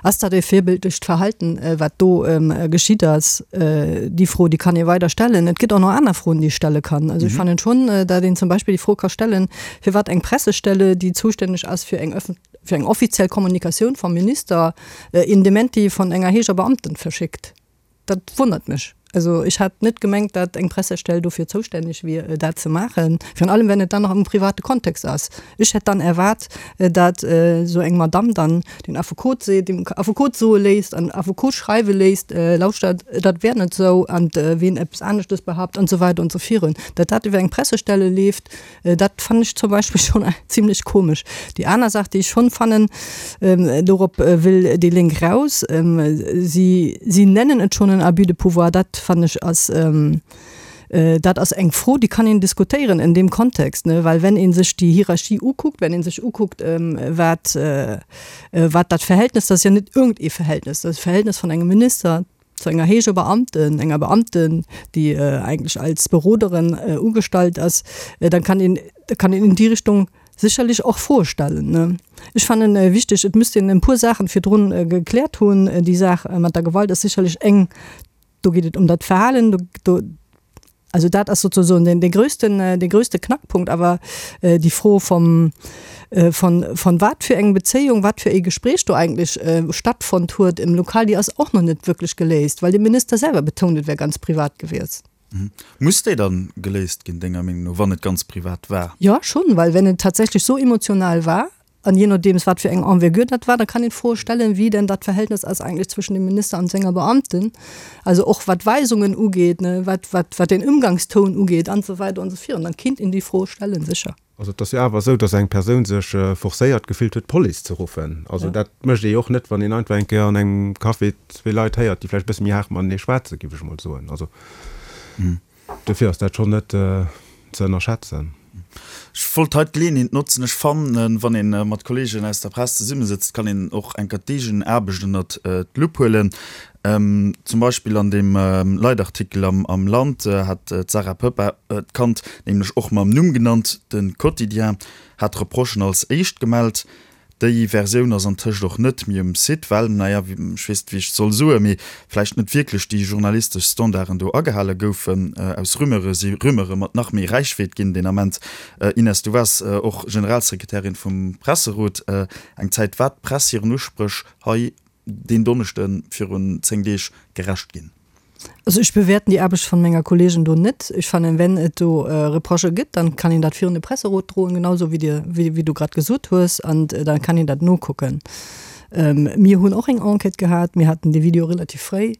Ass dat e virbildlecht Verhalten, wat do geschitt ass? Déi Fro, déi kann ee weider stellen. Et gëtt och nach aner Froen, déi ee stelle kann. Also ech fannen schonn, datt een zum Beispill déi Fro ka stellen, firwat eng Pressestelle, déi zoustänneg ass fir eng öffent, fir eng offiziell Kommunikatioun vam Minister een Dementi von enger héijer Beamten verschickt. Dat wonnert mech. Also ech hat net gemengt, dat eng Pressestell dofir zoustänneg wier, dat ze maachen, virun allem wenn et dann nach am private Kontext ass. Ech hätt dann erwaart, dat esou eng Madamm dann den Affekot seet, dem Affekot soe léisst an Affekot schreiwe léisst, lauschtert, dat wär net esou an ween eppes aneschtes behaupt an esou weider an esou virun. Dat dat iwwer eng Pressestelle leeft, Dat fannen ech zum Beispill schon zimlech komesch. Déi aner Saach, déi ech schon fannen, dorop wëll déi Lénk raus, si, si nennen et schon en Abus de pouvoir, dat fannen ech ass, dat ass eng Fro, déi kann een diskutéieren en deem Kontext, ne, well wenn ee sech déi Hierarchie ukuckt, wenn ee sech ukuckt, wat, wat dat Verhältnis, dat ass jo net iergendee Verhältnis, dat ass e Verhältnis vun engem Minister, zu enger héijer Beamten, enger Beamten, déi eigentlech als Beroderin ugestallt ass, dann kann een, da kann een in déi Richtung sécherlech och Froe stellen, ne. Ech fannen wichteg, et müsst een e puer Saachen virdrun gekläert hunn. Déi Saach mat der Gewalt ass sécherlech eng, do geet et ëm dat Verhalen, do, do. Also dat ass sozusagen den, den größten, den größte Knackpunkt. Awer déi Fro vom, von, von wat fir eng Bezéiung, wat fir ee Gespräch do eigentlech stattfonnt huet im Lokal, déi ass och nach net wierklech geléist, well de Minister selwer betount, et wär ganz privat gewiescht. Muss déi dann geléist ginn, denger Meenung no, wann et ganz privat war? Jo, schonn, well wenn et tatsächlech sou emotional war, An jee nodeems wat fir eng Envergure dat war, da kann een d'Froe stellen, wéi denn dat Verhältnis ass eigentlech zwëschen dem Minister an senger Beamten, also och wat Weisungen ugeet, ne, wat, wat, wat den Ëmgangstoun ugeet an esou weider an esou virun. Dann kinnt een déi Froe stellen, sécher. Also et ass jo awer esou, datt eng Persoun sech forcéiert gefillt huet, d'Police ze ruffen. Also dat mécht ee jo och net, wann een einfach eng Kéier an engem Café zwee Leit héiert, déi vläicht e bësse méi haart matenee schwätzen, géif ech emol soen. Also. Dofir ass dat schonn net ze ënnerschätzen. Ech wollt hei d'Geleeënheet notzen, ech fannen, wann ee mat Kolleegen aus der Press zesummesëtzt, kann een och eng Kéier d'eegen Aarbecht ënnert d'Lupp huelen. Zum Beispill an deem Leitartikel am Land hat d'Sarah Poeppel d'Kand nämlech och mam Numm genannt. De Quotidien hat d'Reprochen als éischt gemellt. Déi Versioun ass antëscht och net méi um Site, well, naja, ech weess net wéi ech et soll soen, mee vläicht net wierklech déi journalistesch Standarden do agehale goufen. Aus Rumeure si Rumeure mat nach méi Räichweet ginn deen Ament. Ines, du waars och Generalsekretärin vum Presserot eng Zäit. War d'Press hiren Uspréch hei deen Donneschde virun 10 Deeg gerecht ginn? Also ech bewäerten déi Aarbecht vun menger Kollegen do net. Ech fannen, wenn et do Reprochë gëtt, dann kann een dat virun de Presserot droen, genau esou wéi Dir, wéi du grad gesot hues, an da kann een dat nokucken. Mir hunn och eng Enquête gehat, mir haten dee Video relativ fréi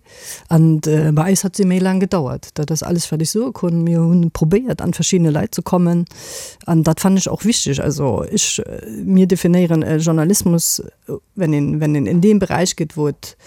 an bei eis hat se méi laang gedauert. Dat ass alles wat ech soe konn. Mir hunn probéiert an verschiddene Leit ze kommen an dat fannen ech och wichteg. Also ech, mir definéieren Journalismus, wenn een, wenn een in deem Beräich geet, wou et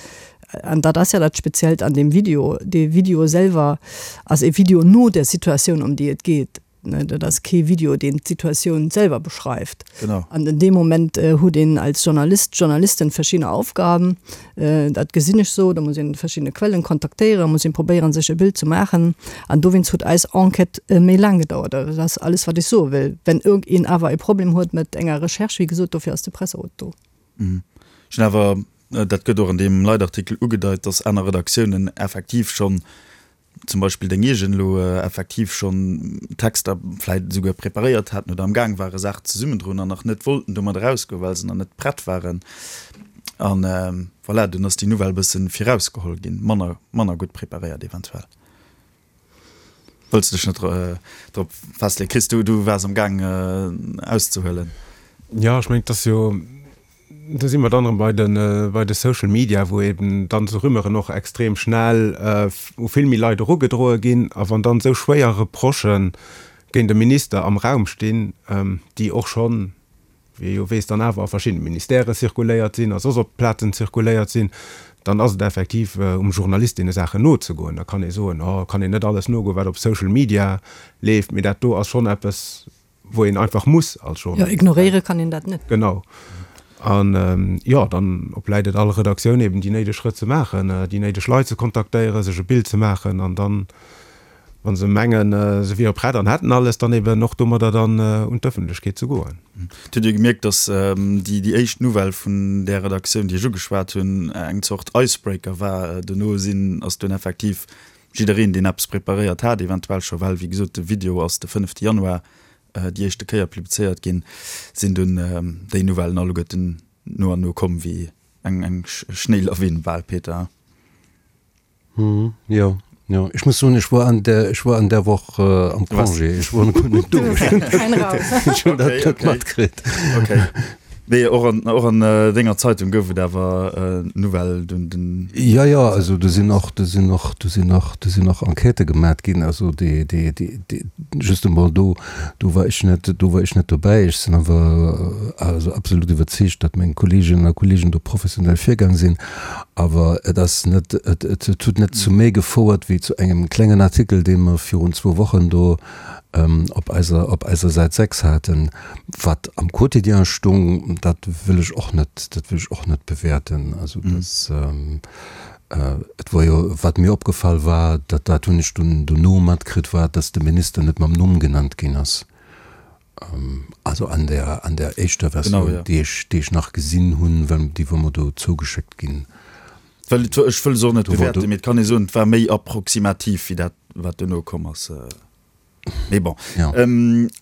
An dat ass ja dat Speziellt an deem Video, dee Video selwer ass e Video no der Situatioun, ëm déi et geet. Dat ass kee Video, deen d'Situatioun selwer beschreift. Genau. An an deem Moment huet een als Journalist, Journalistin verschidde Aufgaben. Dat gesinn ech sou, da muss een verschidde Quellen kontaktéieren, muss een probéieren, sech e Bild ze maachen. An dowéinst huet eis Enquête méi laang gedauert. Dat ass alles, wat ech soe wëll. Wenn iergendeen awer e Problem huet mat enger Recherche, wéi gesot, dofir ass de Presserot do. Ech hunn awer Dat gëtt och an deem Leitartikel ugedeit, dass aner Redaktiounen effektiv schonn, zum Beispill deng eegen elo, effektiv schonn Texter vläicht esouguer preparéiert haten oder am Gaang ware Saachen zesummendroen an nach net wollten domat erausgoen, well se nach net prett waren. A voilà, dunn ass déi Nouvelle e bësse virausgeholl ginn, manner, manner gutt preparéiert eventuell. Wëlls de dech net drop festleeën? Chris, du, du waars am Gaang auszehuelen. Jo, ech mengen, et ass jo, do si mer dann erëm bei de, bei de Social Media, wou eben dann esou Rumeuren och extrem schnell u vill méi Leit erugedroe ginn. A wann dann esou schwéier Reprochë géint e Minister am Raum stinn, déi och schonn, wéi ee jo weess, dann awer a verschiddene Ministèrë zirkuléiert sinn a soss op Plazen zirkuléiert sinn, dann ass et effektiv um Journalist, deene Saachen nozegoen. Da kann ee soen, oh, kann een net alles nogoen, wat op Social Media leeft, mee dat do ass schonn eppes, wou een einfach muss als Journalist. Jo, ignoréiere kann een dat net. Genau. An, jo, dann obläit et all Redaktioun eben, déi néideg Schrëtt ze maachen, déi néideg Leit ze kontaktéieren, sech e Bild ze maachen an dann, wa se mengen, se wiere prett an hätten alles, dann eben och domadder dann un d'Ëffentlechkeet ze goen. Et huet ee gemierkt, datt déi déi éischt Nouvelle vun där Redaktioun, déi ech ugeschwat hunn, eng Zort Icebreaker war. Dono sinn, ass dunn effektiv jiddereen, deen eppes preparéiert hat, eventuell scho, well wéi gesot de Video ass de fënnefte Januar déi éischte Kéier publizéiert ginn, sinn dunn déi Nouvellen alleguerten no an no komm wéi eng Schnéilawin bal, Peter. Hm, jo, jo. Ech muss soen, ech war an der, ech war an der Woch am Congé. Ech war guer net do. Ech hunn dat net matkritt. Okay. Nee, och an, och an denger Zeitung gouf et awer Nouvelle dunn den. Jo, jo, also do sinn och, do sinn och, do sinn och, do sinn och Enquêtë gemat ginn. Also déi, déi, déi, déi, just emol do, do war ech net, do war ech net dobäi. Ech sinn awer also absolut iwwerzeegt, datt meng Kolleeginnen a Kolleegen do professionell virgaang sinn. Awer et ass net, et huet net zu méi gefouert wéi zu engem klengen Artikel, dee mer virun zwou Wochen do op eiser, op eiser Säit 6 haten. Wat am Quotidien stung, dat wëll ech och net, dat wëll ech och net bewäerten. Also dass, et wor jo, wat mir opgefall war, dat, dat hunn ech dunn dono matkritt, war, dass de Minister net mam Numm genannt ginn ass. Also an der, an der éischter Versioun, genau, ja. déi ech, déi ech nach gesinn hunn, well déi wor mer do zougeschéckt ginn. Well et, ech wëll se och net bewäerten, mee et kann ee soen, et war méi approximativ wéi dat. wat duerno komm ass. Mee bon.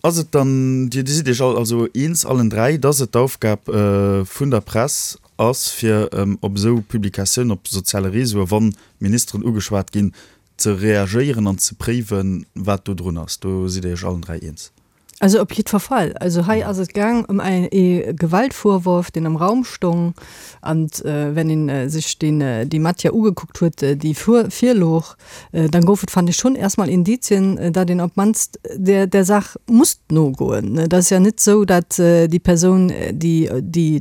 Ass et dann, Dir sidd Iech all also eens, allen 3, dass et d'Aufgab vun der Press ass, fir op esou Publikatiounen op soziale Réseaue, wa Ministeren ugeschwat ginn, ze reagéieren an ze préiwen, wat do drun ass? Do sidd Dir Iech allen 3 eens? Also op jiddwer Fall. Also hei ass et gaang ëm ee Gewaltvorwurf, deen am Raum stong. An wenn een sech deen, déi Matière ugekuckt huet, déi virlooch, dann gouf et, fand ech, schonn erstmal Indizien, datt een op d'mannst där, där Saach musst nogoen. Et ass ja net esou, datt déi Persoun, déi, déi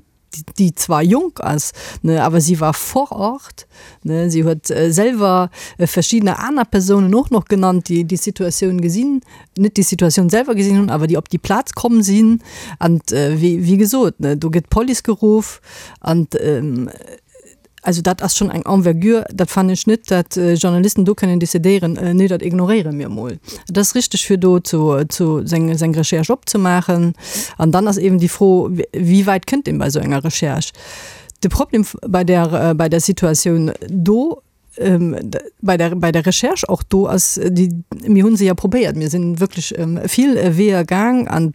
déi zwar jonk ass, ne, awer si war vor Ort, ne, si huet selwer verschiddener aner Persounen och noch genannt, déi déi Situatioun gesinn, net déi Situatioun selwer gesinn hunn, awer déi op déi Plaz komm sinn. An wéi, wéi gesot, ne, do gëtt d'Police geruff an also dat ass schonn eng Envergure, dat fannen ech net, dat Journalisten do kënnen decidéieren, nee dat ignoréiere mir emol. Et ass richteg fir do zu zu seng seng Recherche opzemaachen. An dann ass eben déi Fro, wéi wäit kënnt een bei esou enger Recherche? De Problem bei där bei der Situatioun do, bei der bei der Recherche och do ass déi, mir hu se jo probéiert, mir sinn wierklech vill Weeër gaang an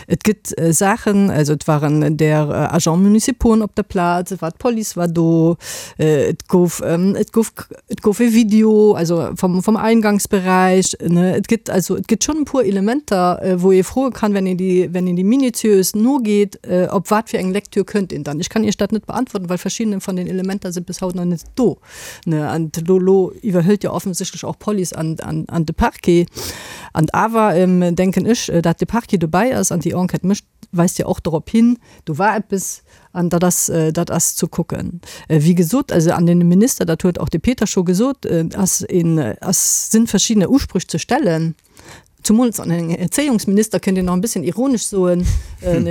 et gëtt Saachen, also et waren där Agents municipauxen op der Plaz, et war d'Police war do, et gouf et gouf et gouf e Video also vom vom Eingangsbereich ne. Et gëtt also et gëtt schonn e puer Elementer, wou ee froe kann, wenn een déi wenn een déi minutiös nogeet, op wat fir eng Lektür kënnt een dann. Ech kann Iech dat net beantworten, well verschiddene van den Elementer si bis haut nach net do ne. An elo elo iwwerhëlt jo offensichtlech och d'Police an an an de Parquet. An awer denken ech, dat de Parquet dobäi ass an déi Enquête mécht, weist jo och dorop hin, do war eppes an dat ass, dat ass ze kucken. Wéi gesot, also an den Minister, dat huet och de Peter scho gesot, ass een, ass, sinn verschiddene Usprüch ze stellen, zumools an eng Erzéiungsminister kënnt een nach e bësschen ironesch soen,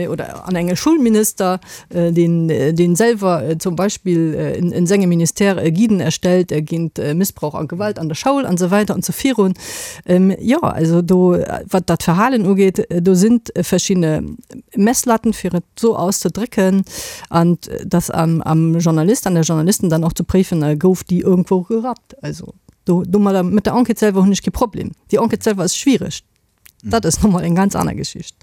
oder an enge Schulminister, deen, deen selwer zum Beispill in, in sengem Ministère Guiden erstellt géint Missbrauch a Gewalt an der Schoul an esou weider an esou virun. Jo, also do, wat dat Verhalen ugeet, do sinn verschidde Messlatten, fir et esou auszedrécken, an dass am, am Journalist, an der Journalisten dann och ze préifen, gouf déi irgendwou gerappt. Also do, domadder, mat der Enquête selwer hunn ech kee Problem. Déi Enquête selwer ass schwiereg. Dat ass nochmol eng ganz aner Geschicht.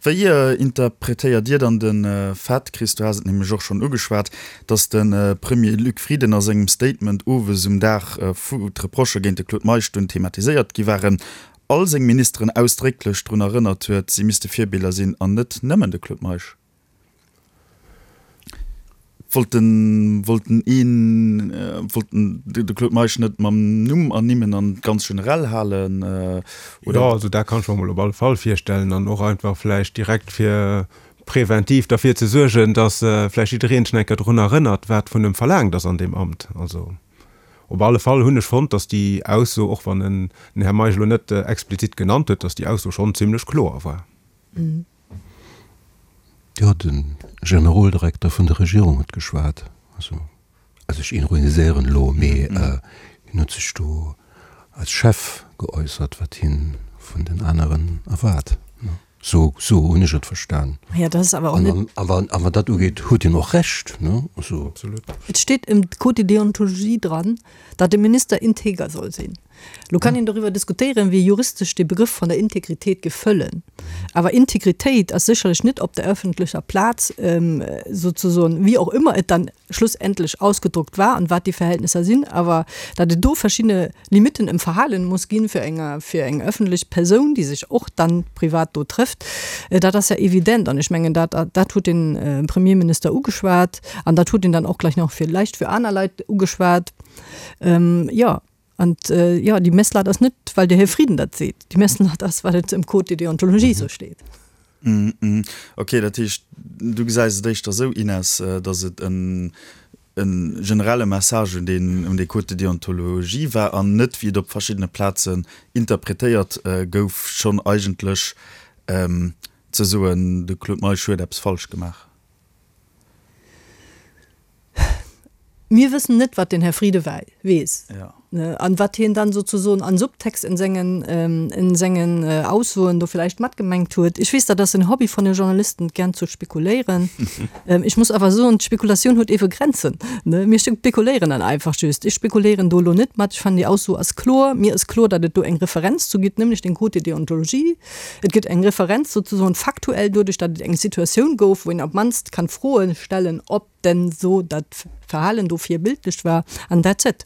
Wéi interpretéiert Dir dann de Fait, Chris, du has et nämlech och schonn ugeschwat, datt de Premier Luc Frieden a sengem Statement owes um Dag, wou d'Reprochë géint de Claude Meisch dunn thematiséiert gi waren, all seng Ministeren ausdrécklech drun erënnert huet, si misste Virbiller sinn an net nëmmen de Claude Meisch? Wollt den, wollt den een, wollt den de Claude Meisch net mam Numm ernimmen an ganz generell halen, oder? Jo, also dat kann ech mer mol op alle Fall virstellen an och einfach vläicht direkt fir präventiv derfir ze suergen, datt vläicht jiddereen sech eng Kéier drun erënnert, wat vun em verlaangt ass an deem Amt. Also op alle Fall hunn ech fonnt, datt déi Ausso, och wann en den Här Meisch elo net explizit genannt huet, datt déi Ausso schonn zimlech kloer war. Jo, de Generoldirekter vun der Regierung huet geschwat. Also, also ech ironiséieren elo, mee hien huet sech do als Chef geäussert, wat hien vun den aneren erwaart. Sou, sou hunn ech et verstan. Ja, dat ass awer och net. An, an, a wat dat ugeet, huet hien och Recht, ne? Also. Absolut. Et steet im Code de déontologie dran, datt e Minister integer soll sinn. Lo kann een doriwwer diskutéieren, wéi juristesch dee Begrëff vun der Integritéit géif fëllen. Awer Integritéit ass sécherlech net op der öffentlecher Plaz souzesoen, wéi och ëmmer et dann schlussendlech ausgedruckt war an wat déi Verhältnisser sinn, awer datt et do verschidde Limitten em Verhalen muss ginn fir eng, fir eng öffentlech Persoun, déi sech och dann privat do trëfft, dat ass ja evident. An ech mengen, dat, dat huet de Premierminister ugeschwat an dat huet en dann och gleich nach villäicht fir aner Leit ugeschwat. Jo. An jo, déi Messlatt ass net, well de Här Frieden dat seet. Déi Messlatt ass, well et am Code de déontologie esou steet. Ok, dat heescht, du gesäis et éischter esou, Ines, datt et e generelle Message un deen, un dee Code de déontologie war an net, wéi et op verschiddene Plazen interpretéiert gouf, schonn eigentlech ze soen, de Claude Meisch huet eppes falsch gemaach. Mir wëssen net, wat den Här Frieden weess. An wat hien dann sozusoen an Subtext in sengen, in sengen Aussoen do villäicht matgemengt huet. Ech weess, dat ass en Hobby von de Journalisten, gern zu spekuléieren. Ech muss awer soen, d'Spekulatioun huet ewe Grenzen, ne? Mir spekuléieren dann einfach just. Ech spekuléieren do elo net mat. Ech fannen, déi Ausso ass kloer. Mir ass kloer, datt et do eng Referenz zu gitt, nämlech den Code de déontologie. Et gëtt eng Referenz sozusoen faktuell doduerch, datt et eng Situatioun gouf, wou een op d'mannst kann Froe stellen, ob denn so dat Verhalen do virbildlech war, an that's it.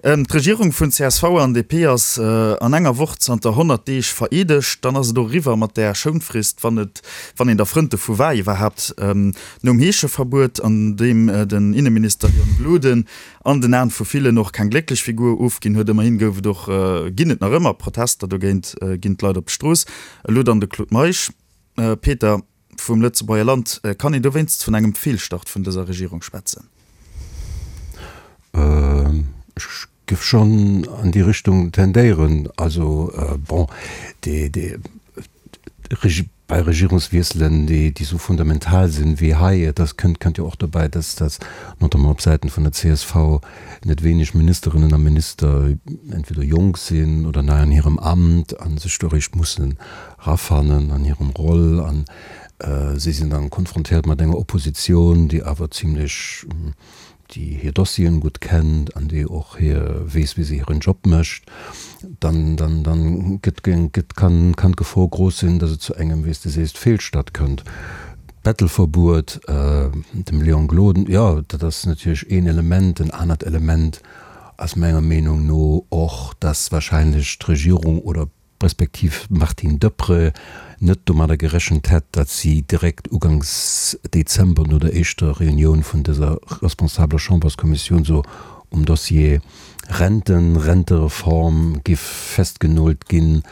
D'Regierung vun csv an DP ass an enger Woch zanter 100 Deeg vereedegt. Dann ass et och eriwwer mat där Schounfrist, wann et, wann een der Frënd dovu war iwwerhaapt. Nom Heescheverbuet, an deem den Inneminister Leon Gloden an den Aen vu villen och keng glécklech Figur ofginn huet, ëmmerhin gouf et och, ginn et nach ëmmer Protester dogéint, ginn d'Leit op d'Strooss. Elo dann de Claude Meisch. Peter. Vum Lëtzebuerger Land. Kann een dowéinst vun engem Feelstart vun dëser Regierung schwätzen? Ech géif schonn an déi Richtung tendéieren. Also, bon, déi, déi, bei Regierungswiesselen, déi, déi esou fundamental sinn wéi hei, et ass, kënnt, kënnt jo och dobäi, dass, dass notamment op Säiten vun der csv net wéineg Ministerinnen a Minister entweder jonk sinn oder nei an hirem Amt a sech do eréischt mussen rafannen an hirem Roll an si sinn dann konfrontéiert mat enger Opposition, déi awer zimlech, déi hir Dossieren gutt kennt an déi och hir, weess wéi se hiren Job mécht, dann, dann, dann gëtt, gëtt, kann, kann d'Gefor grouss sinn, datt et zu engem, wéi s de sees, Feelstart kënnt. D'Bettelverbuet, dem Léon Gloden, jo, dat ass natierlech een Element. En anert Element ass menger Meenung no och, datt wahrscheinlech d'Regierung oder respektiv d'Martine Deprez net domadder gerechent hätt, datt si direkt uganks Dezember no der éischter Reunioun vun dëser responsabeler Chamberskommissioun so um Dossier Renten, Rentereform giff festgenoolt ginn.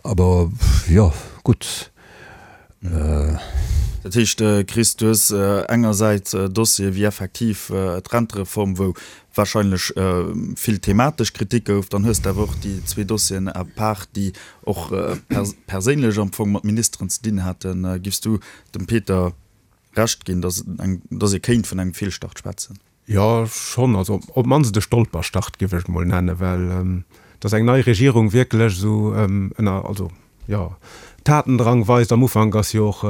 Aber jo, gutt. Dat heescht, Chris, du hues engersäits Dossiere wéi effektiv d'Rentereform, wou wahrscheinlech vill thematesch Kritik gouf, dann hues de awer och déi zwee Dossieren à part, déi och perséinlech am Fong mat Ministeren ze dinn haten. Giffs du dem Peter Recht ginn, datt ee kéint vun engem Feelstart schwätzen? Jo, schonn. Also op d'mannst e Stolperstart, géif ech et mol nennen, well datt eng nei Regierung wierklech esou ënner, also jo, Tatendrang weist am Ufank ass jo och,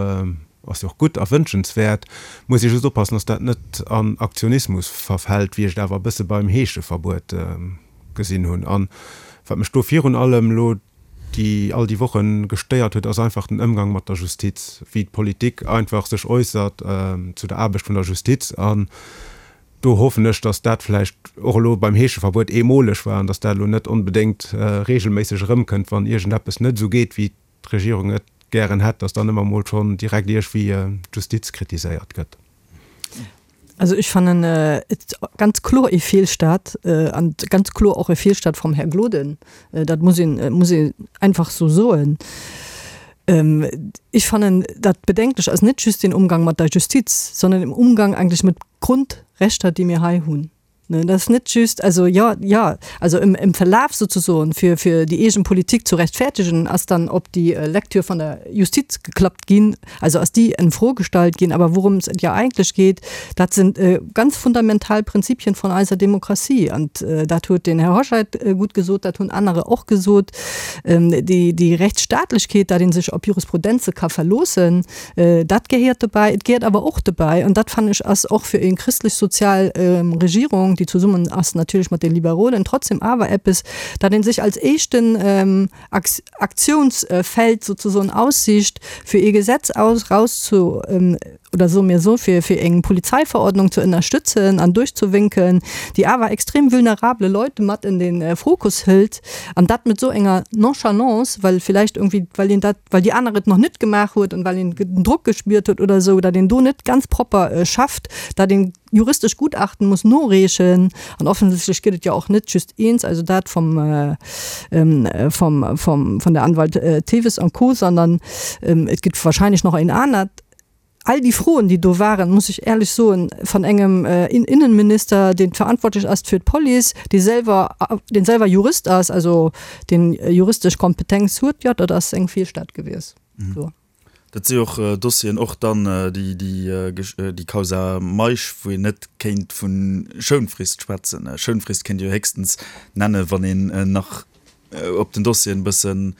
ass jo och gutt a wënschenswäert. Muss ee just oppassen, datt dat net an Aktionismus verfält, wéi ech et awer e bësse beim Heescheverbuet gesinn hunn. An wat mech do virun allem elo déi all déi Woche gestéiert huet, ass einfach den Ëmgang mat der Justiz, wéi d'Politik einfach sech äussert zu der Aarbecht vun der Justiz. An do hoffen ech, datt dat vläicht och elo beim Heescheverbuet eemoleg war an datt dat elo net onbedéngt reegelméisseg erëmkënnt, wann iergendeppes net esou geet, wéi d'Regierung et gären hätt, datt dann ëmmer emol schonn direkt iergwéi d'Justiz kritiséiert gëtt. Also ech fannen et ganz kloer ee Feelstart an ganz kloer och e Feelstart vum Här Gloden. Dat muss een, muss een einfach esou soen. Ech fannen dat bedenklech ass net just den Umgang mat der Justiz, sondern den Umgang eigentlich mit Grundrechter, déi mir hei hunn. Dat ass net just, also jo, jo, also im, im Verlaf sozusoen, fir, fir déi eegen Politik zu rechtfertigen, ass dann op déi Lektür von der Justiz geklappt ginn, also ass déi en Fro gestallt ginn. Awer wourëms et jo eigentlech geet, dat sind ganz fundamental Prinzipien von eiser Demokratie. An dat huet den Här Hoscheit gutt gesot, dat hunn anerer och gesot, déi, déi Rechtsstaatlechkeet, dat ee sech op Jurisprudenze ka verloossen, Dat gehéiert dobäi. Et gehéiert awer och dobäi, an dat fannen ech ass och fir eng christlech-sozial Regierung, déi zesummen ass natierlech mat de Liberolen, trotzdem awer eppes, dat ee sech als éischten Aktionsfeld sozesoen aussicht, fir ee Gesetz aus rauszu oder soe mir esou, fir fir eng Polizeiverordnung ze ënnerstëtzen an duerchzewénken, déi awer extrem vulnerable Leute mat en de Fokus hëlt, an dat mat esou enger Nonchalance, well villäicht irgendwie, well een dat well déi aner et nach net gemaach huet an well een den Drock gespiert huet oder esou, datt een do net ganz propper schafft, datt een juristesch Gutachten muss noreechen an offensichtlech gëtt et jo och net just eent, also dat vom vom vom von der Anwalt Theves an Co, sondern et gëtt wahrscheinlech nach een anert. All déi Froen, déi do waren, muss ech éierlech soen, van engem Innenminister, deen verantwortlech ass fir d'Police, dee selwer, deen selwer Jurist ass, also deen juristesch Kompetenz huet, jo, dat ass eng Feelstart gewies. Dat si och Dossieren, och dann déi Causa Meisch, wou een net kéint vu Schounfrist schwätzen. Schounfrist kéint ee jo héchstens nennen, wann een nach op den Dossieren e bëssen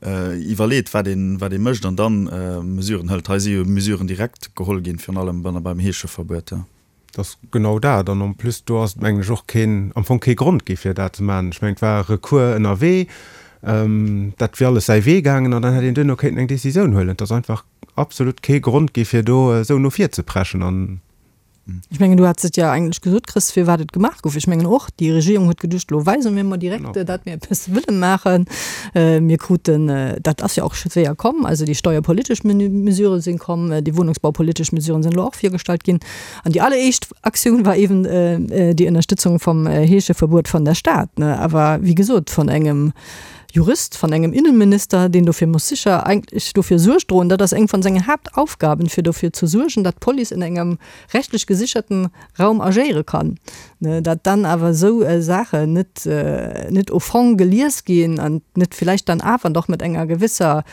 iwwerleet, wat een, wat ee mécht an dann Mesuren hëlt. Hei si jo Mesuren direkt geholl ginn, virun allem beim Heescheverbuet. Dat ass genau dat. An en plus, do ass et, mengen ech, och keen, am Fong kee Grond gi fir dat ze maachen. Ech mengen, et war e Recours ënnerwee, dat wier alles säi Wee gaangen an dann hätt een duerno kéinten eng Décisioun huelen. Et ass einfach absolut kee Grond gi fir do esou no vir ze preschen an. Ech mengen, du hats et jo eigentlech gesot, Chris, firwat et gemaach gouf. Ech mengen och, déi Regierung huet geduecht, elo weise mir mol direkt, datt mir eppes wëlle maachen. Mir kruten, dat ass jo och séier komm, also déi steuerpolitesch Mesurë sinn komm, déi wunnungsbaupolitesch Mesuren sinn elo och virgestallt ginn. An déi alleréischt Aktioun war eben déi Ënnerstëtzung vum Heescheverbuet vun der Stad, awer wéi gesot vun engem Jurist, vun engem Innenminister, deen dofir muss sicher eigentlech dofir Suerg droen, dat ass eng vun sengen Haaptaufgaben, fir dofir ze suergen, datt d'Police in engem rechtlech gesicherten Raum agéiere kann. Dat dann awer esou Saachen net net au fond gelies ginn an net villäicht dann awer doch mat enger gewisser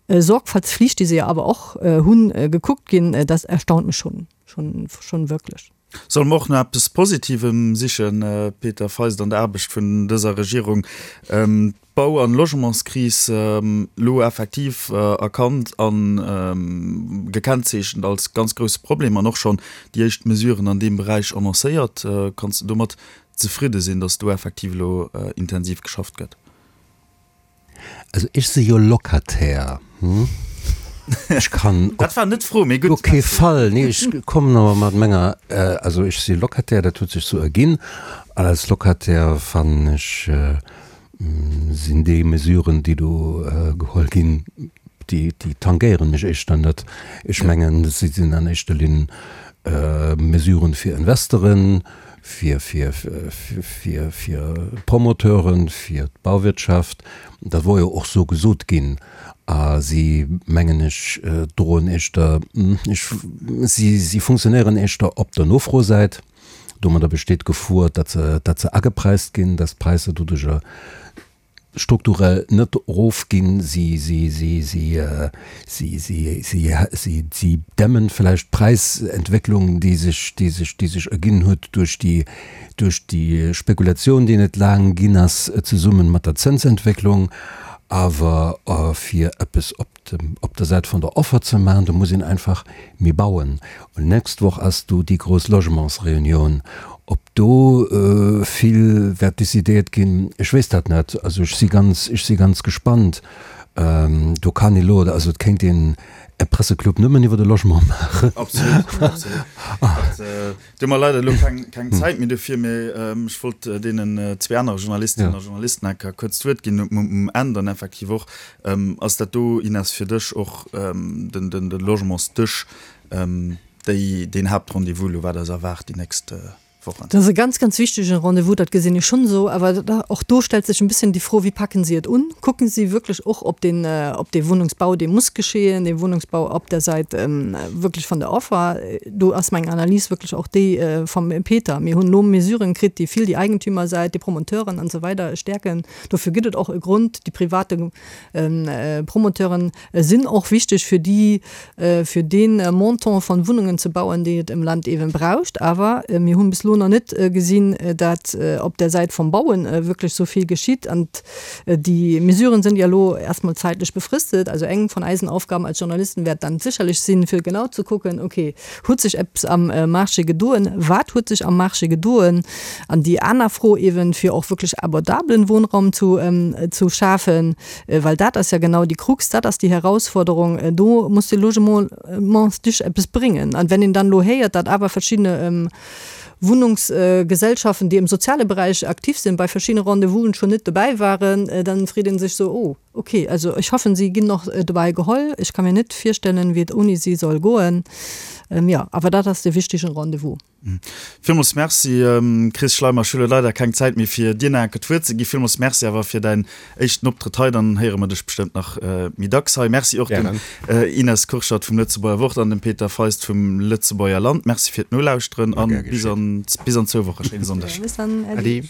Sorgfaltspflicht, déi se jo awer och hunn, gekuckt ginn, dat erstaunt mech schon, schon, schon wierklech. Solle mer och nach eppes Positivem sichen, Peter Feist, an der Aarbecht vun dëser Regierung? D'Bau an Logementskris elo effektiv erkannt a gekennzeechent als ganz grousse Problem an och schonn déi éischt Mesuren an deem Beräich annoncéiert. Kanns de domat zefridde sinn, datt do effektiv elo intensiv geschafft gëtt? Also ech si jo Locataire, hm? Ech kann op Dat war net d'Fro, mee gutt. kee Fall, nee, ech kommen awer mat menger, also ech si Locataire, dat huet sech sou erginn, an als Locataire fannen ech, sinn déi Mesuren, déi do geholl ginn, déi, déi tangéieren mech éischter net. Ech mengen, si sinn an éischter Linn Mesuren fir Investoren, fir, fir, fir, fir d'Promoteuren, fir d'Bauwirtschaft. Dat wor jo och sou gesot ginn. A si, mengen ech, droen éischter, ech, si, si funktionéieren éischter op der Nofrosäit. Domadder besteet d'Gefor, datt se, datt se agepreist ginn, datt d'Präisser doduercher strukturell net erofginn, si, si, si, si, si, si, si, si, si dämmen vläicht d'Präisentwécklung, déi sech, déi sech, déi sech erginn huet duerch déi, duerch déi Spekulation, déi net laang ginn ass, zesumme mat der Zënsentwécklung. Awer fir eppes op dem, op der Säit vun der Offer ze maachen, do muss een einfach méi bauen. Und nächst Woch ass do déi grouss Logementsreunioun. Ob do vill wäert decidéiert ginn, ech weess dat net. Also ech si ganz, ech si ganz gespannt. Do kann ee lo, also et kéint een e Presseclub nëmmen iwwer de Logement maachen. Absolut, absolut. Do hu mer leider elo keng Zäit méi dofir, mee ech wollt deenen zwee anere Journalistinnen a Journalisten eng Kéier kuerz d'Wuert ginn um Enn dann effektiv och. Ass dat do, Ines, fir dech och de Logementsdësch, déi, deen Haaptrendez-vous elo, wat eis erwaart déi nächst Wochen? Dat ass e ganz, ganz wichtege Rendez-vous, dat gesinn ech schonn esou. Awer och do stellt sech en bësschen déi Fro, Wéi packen si et un? Kucken si wierklech och op deen, op dee Wunnungsbau, dee muss geschehen, dee Wunnungsbau op der Säit wierklech vun der Offer? Do ass meng Analys wierklech och déi vum Peter. Mir hunn elo Mesuren kritt, déi vill déi Eigentümersäit, déi Promoteuren an esou weider stäerken. Dofir gëtt et och e Grond. Déi private Promoteuren sinn och wichteg fir déi, fir dee Montant von Wunnungen ze bauen, déi et am Land eeben braucht. Awer mir hunn bis elo nach net gesinn, dat op der Säit vum Bauen wierklech esou vill geschitt. An déi Mesuren sinn jo elo erstmol zäitlech befristet. Also eng von eisen Aufgaben als Journalisten wäert dann sécherlech sinn, fir genau ze kucken, okay, huet sech eppes am Marché gedoen, wat huet sech am Marché gedoen? An déi aner Fro eeben, fir och wierklech abordablen Wohnraum zu zu schafen, well dat ass ja genau déi Krux, dat ass déi Herausforderung, do muss de Logementsdich eppes bréngen. An wenn een dann elo héiert, datt awer verschiddene Wunnungsgesellschaften, déi am soziale Beräich aktiv sinn, bei verschiddene Rendez-vousen schon net dobäi waren, dann freet ee sech sou, oh, okay, also ech hoffen, si ginn och dobäi geholl. Ech ka mir net virstellen, wéi et ouni si soll goen. Jo, awer dat ass de wichtegen Rendez-vous. Villmools Merci, Chris Schleimer. Ech hu lo leider keng Zäit méi fir dir nach enke d'Wuert ze ginn. Villmools Merci awer fir däin éischten Optrëtt hei. Dann héiere mer dech bestëmmt nach méi dacks hei. Merci och dem Ines Kurschat vum Lëtzebuerger Wort an dem Peter Feist vum Lëtzebuerger Land. Merci fir d'Nolauschteren a bis an zwou Woche. Schéine Sonndeg. Bis dann. Äddi.